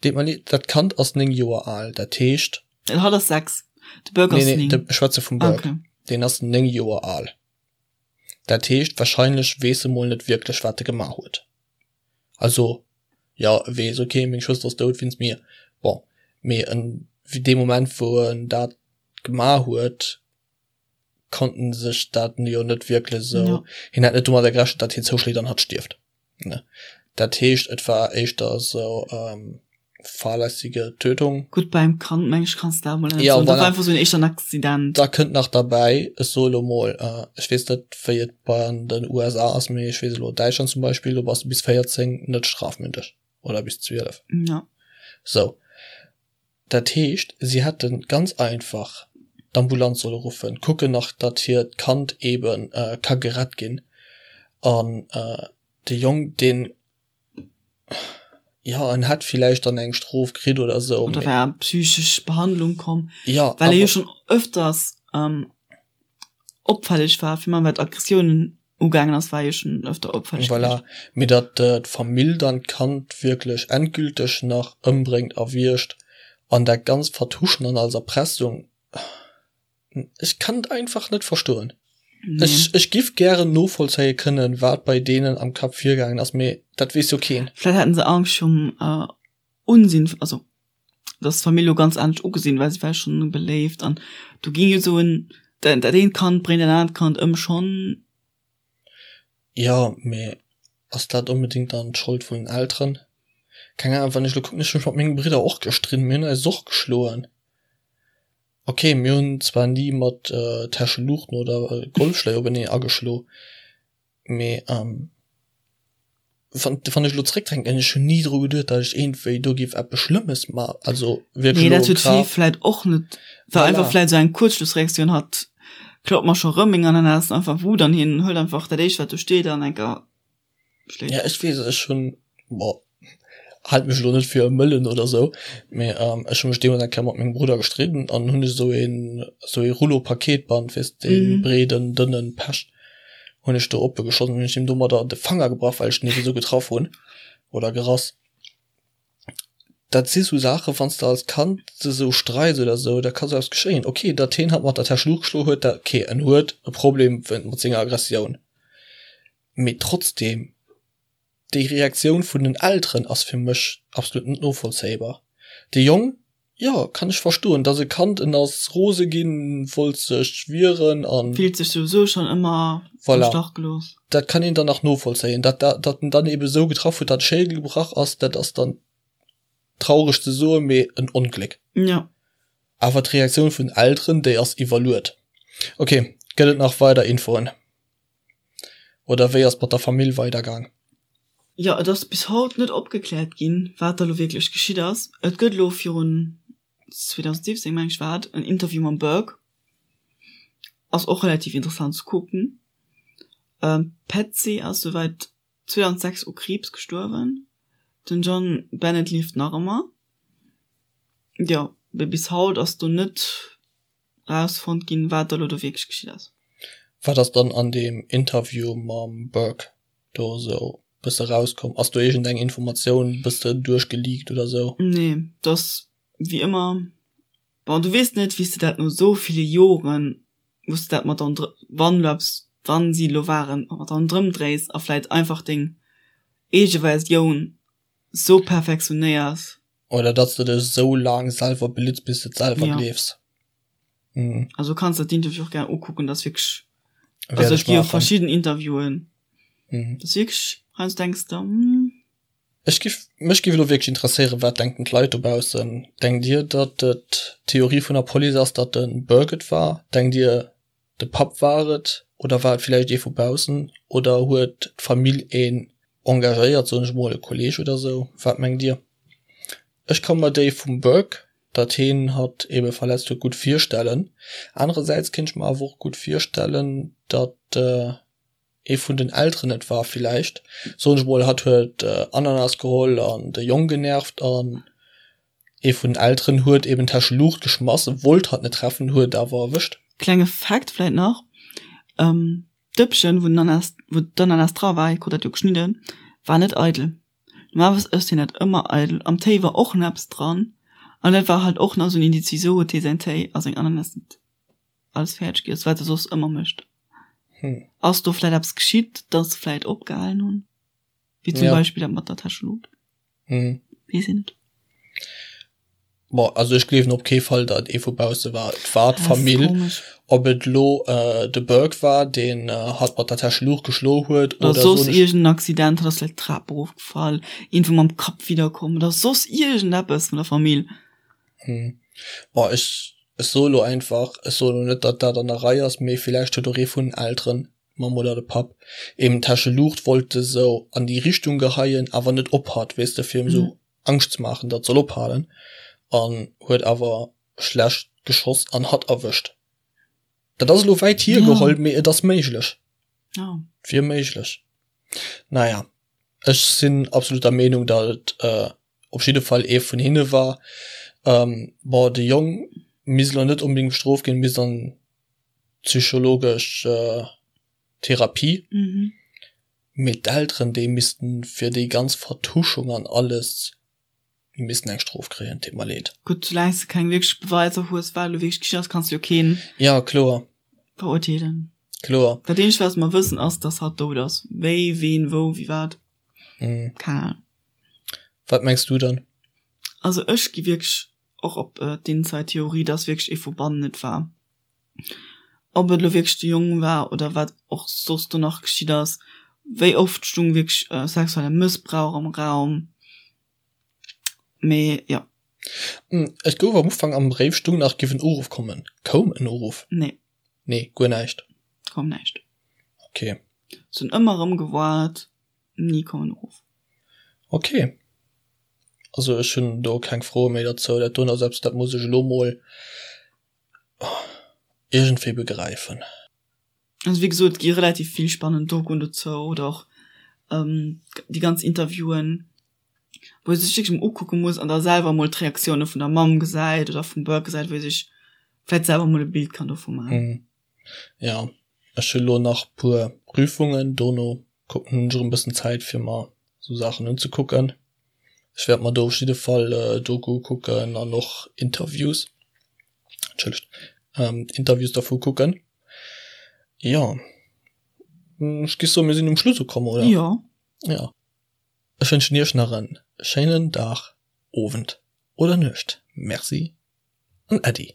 Deet mer leed, dat Kand ass 9 Joer al, dat heescht. Hatt ass 6, de Burke ass 9. Nee, nee, ech schwätze vum Burke. Okay. Deen ass 9 Joer al. Dat heescht, wahrscheinlech weess e mol net wierklech, wat e gemaach huet. Also, jo, e weess, okay, meng Schwëster ass dout wéinst mir. Bon, mee en, dee Moment, wou en dat gemaach huet. konnt en sech dat jo net wierklech esou, ja. hien hätt net domadder gerechent, datt hien zouschléit an hatt stierft, ne. Dat heescht, et war éischter esou ähm, fahrlässige Tötung. Gutt, beim Kand, meng ech, kanns de dat emol net soen. Dat war einfach esou en éischter en Accident. Da kënnt nach derbäi, ech soe lo mol, ech weess net, wéi et bei an den USA ass, mee ech weess elo Däitschland zum Beispill, do bass de bis 14 net strafmündeg oder bis 12. Ja. Sou. Dat heescht, si hätte ganz einfach d'Ambulanz solle ruffen, kucken nach, datt hiert Kand eebe ka gerett ginn an de Jong, deen, jo, en hätt villäicht dann eng Strof kritt oder esou. Oder wär an psychesch Behandlung komm, well e jo schonn ëfters opfälleg war, fir wat Aggressiounen ugaangen ass, war jo schonn ëfter opfälleg. Voilà, mee datt d'Famill dann d'Kand wierklech endgülteg nach ëmbréngt a wiergt an dat Ganzt vertuschen an als Erpressung, ech kann et einfach net verstoen. Nee. Ech, ech giff gären novollzéie kënnen, wat bei deenen am Kapp virgaangen ass, mee dat weess jo keen. Vläit haten se Angscht virum Unsinn, also dass d'Famill lo ganz anescht ugesinn, well si war schonn beléift an do ging jo sou en dat eent Kand bréngt dat anert Kand ëm schonn. Jo, mee ass dat onbedéngt dann d'Schold vun den Elteren? Keng Ahnung, wann ech lo kucken, ech hu mech mat menge Bridder och gestridden, mir hunn eis och geschloen. Ok, mir hunn zwar ni mat Täscheluuchten oder Golfschléi openee ageschlo, Mee wann wann ech elo zréckdenken, ech hunn ni dru geduet, datt ech iergendwéi do géif eppes Schlëmmes ma also wierklech Nee, dat huet d'Fee vläit och net, war einfach vläit esou eng Kuerzschlussreaktioun, hatt klaut mer scho rëm meng Ananas, einfach Wut an hien hëlt einfach dat éischt wat do steet an enker schléit. Ja, ech weess, ech hunn, bon, Haalt mech elo net fir e Mëllen oder sou, mee ech hu mech deemools eng Kéier mat mengem Brudder gestridden an hunn ech esou een esou ee Rouleau Paketband, weess dee breeden, dënnen Pech, hunn ech do oppe geschoss an hunn ech him domadder de Fanger gebrach, well ech den ebe sou getraff hunn oder gerass. Dat si sou Saachen, wann s de als Kand de sou streits oder sou, da ka sou eppes geschéien. Ok, datt hien hatt mat der Täsch Luucht geschloen huet, dat ok, en huet e Problem mat senger Aggressioun, mee trotzdem. Déi Reaktioun vun den Elteren ass fir mech absolut net novollzéibar. De Jong, jo, kann ech verstoen, dass e Kand, en ass rose ginn, wollt sech wieren an. Fillt sech souwisou schonn ëmmer am Stach gelooss. Voilà, dat kann een dann nach novollzéien. Dat, datt en dann ebe sou getraff huet, datt de Schéidel gebrach ass, dat ass dann traureg ze soen, mee en Ongléck. Jo. Awer d'Reaktioun vun den Elteren, déi ass iwwerluet. Ok, gëtt et nach weider Infoen? Oder wéi ass et mat der Famill weidergaang? Jo, et ass bis haut net opgekläert ginn, wat da lo wierklech geschitt ass. Et gëtt elo virun, 2017 meng ech war et, en Interview mam Burke. Ass och relativ interessant ze kucken. D'Patsy ass souwäit 2006 u Kriibs gestuerwen. Den John Bennett lieft nach ëmmer. Jo, mee bis haut ass do net rausfonnt ginn, wat da lo do wierklech geschitt ass. Wat ass dann an deem Interview mam Burke do esou bësse rauskomm? Ass do iergend eng Informatioun bësse duerchgeleakt oder esou? Nee, dat ass wéi ëmmer, bon, du weess net, wéi s de dat no esou ville Joren, wou s de dat mat an, wann elo eppes, wann si elo waren, mat ronderëm dréis a vläit einfach deng eege Versioun esou perfektionéiers. Oder datt s de dech esou laang selwer belitts, bis de et selwer gleefs. Mhm. Also kanns der d'Interview och gär ukucken, dat ass wierklech, also et gi jo verschidden Interviewen, Mhm. dat ass wierklech, heiansdo denks de, hm. Ech giff, mech giff elo wierklech interesséieren, wat denken d'Leit dobaussen? Denkt dir, datt et d'Theorie vun der Police ass, datt de Burke et war? Denkt dir, De Papp war et, oder war et villäicht ee vu baussen, oder huet d'Famill een engagéiert, soen ech mol, e Kolleg oder sou? Wat mengt dir? Ech ka mer déi vum Burke, datt heen hatt ebe verletzt huet, gutt virstellen. Anerersäits kéint ech mer awer och gutt virstellen, datt ee vun den Elteren et war villäicht, soen ech mol, hatt huet Ananas geholl an de Jong genervt an ee vun den Elteren huet eben d'Täsche Luucht geschmass, wollt hatt net treffen, huet awer erwëscht. Klenge Fact vläit nach, D'Dëppchen wou den Ananas, wou d'Ananas dra war, hie krut dat jo geschnidden, war net eidel. Normalerweis ësst hien dat ëmmer eidel. Am Téi war och nach eppes dran an dat war halt och nach esou en Indiz, wisou huet hie säin Téi a seng Ananas net alles fäerdeg giess, wat e soss ëmmer mécht. Hm. Ass do vläit eppes geschitt, dass se vläit opgehalen hunn? Wéi zum ja. Beispill dat mat der Täschelut. Hm. Weess een net. Bon, also ech gleewen op kee Fall, datt et ee vu bausse war. Et war d'Famill. Ob et elo de Burke war, deen hatt mat der Täscheluucht geschloe huet oder soss iergend en Accident, hatt ass vläicht d'Trap erofgefall, iergendwou mam Kapp widderkomm oder soss iergendeppes vun der Famill. Bon, ech soe lo einfach, ech soe lo net, datt dat an der Rei ass, mee villäicht huet och ee vun den Elteren, d'Mamm oder de Papp, eben d'Täscheluucht wollte sou an déi Richtung geheien, awer net op hatt, weess de, fir em sou Angscht ze maachen, datt soll ophalen, an huet awer schlecht geschoss an hatt erwëscht. Dat ass elo wäit hiergeholl, mee et ass méiglech. Et wier méiglech. Naja, ech sinn absolut der Meenung, datt et op jidde Fall ee vun hinne war. Bon, de Jong misst elo net onbedéngt bestrooft ginn, misst an d'psychologesch Therapie. Mee d'Elteren, déi missten fir déi ganz Vertuschung an alles, déi missten eng Strof kréien, deet mer leed. Gutt, soulaang s de keng wierklech Beweiser hues, wat elo wierklech geschitt ass, kanns de jo keen. Jo, kloer. Verurteelen. Kloer. Dat eenzegt, wat mer wëssen, ass, dass hatt dout ass. Wéi, ween, wou, wéi, wat, keng Ahnung. Wat mengs du dann? Also ech gi wierklech och op d'Inside-Theorie, dass wierklech ee vu bannen et war. Ob et elo wierklech de Jong war oder wat och soss do nach geschitt ass, wéi oft stung wierklech sexuelle Mëssbrauch am Raum, mee jo. Et gouf am Ufank am Bréif stung nach giff en Uruff kommen. Koum en Uruff? Nee. Nee, guer näischt? Koum näischt. Ok. Se hunn ëmmer erëm gewaart, ni koum en Uruff. Ok. Also ech hunn do keng Froe méi derzou. Dat doen ass eppes, dat muss ech elo mol Iergendwéi begräifen. Also wéi gesot, et gi relativ vill spannend Dokuen dozou oder och déi ganz Interviewen, wou ee sech wierklech emol ukucke muss an da selwer emol d'Reaktioune vun der Mamm gesäit oder vum Burke gesäit, wou ee sech vläicht selwer emol e Bild kann dovu maachen. Jo, ech hu lo nach puer Prüfungen, dono kucken, hunn ech erëm e bëssen Zäit fir mer sou Saachen unzekucken. Ech wäert mer do op jidde Fall Doku kucken an och Interviews, entschëllegt, Interviews dervu kucken. Jo, ech géif soen, mir sinn um Schluss ukomm, oder? Jo. Jo. Ech wënschen iech nach en schéinen Dag, Owend oder Nuecht. Merci an Äddi.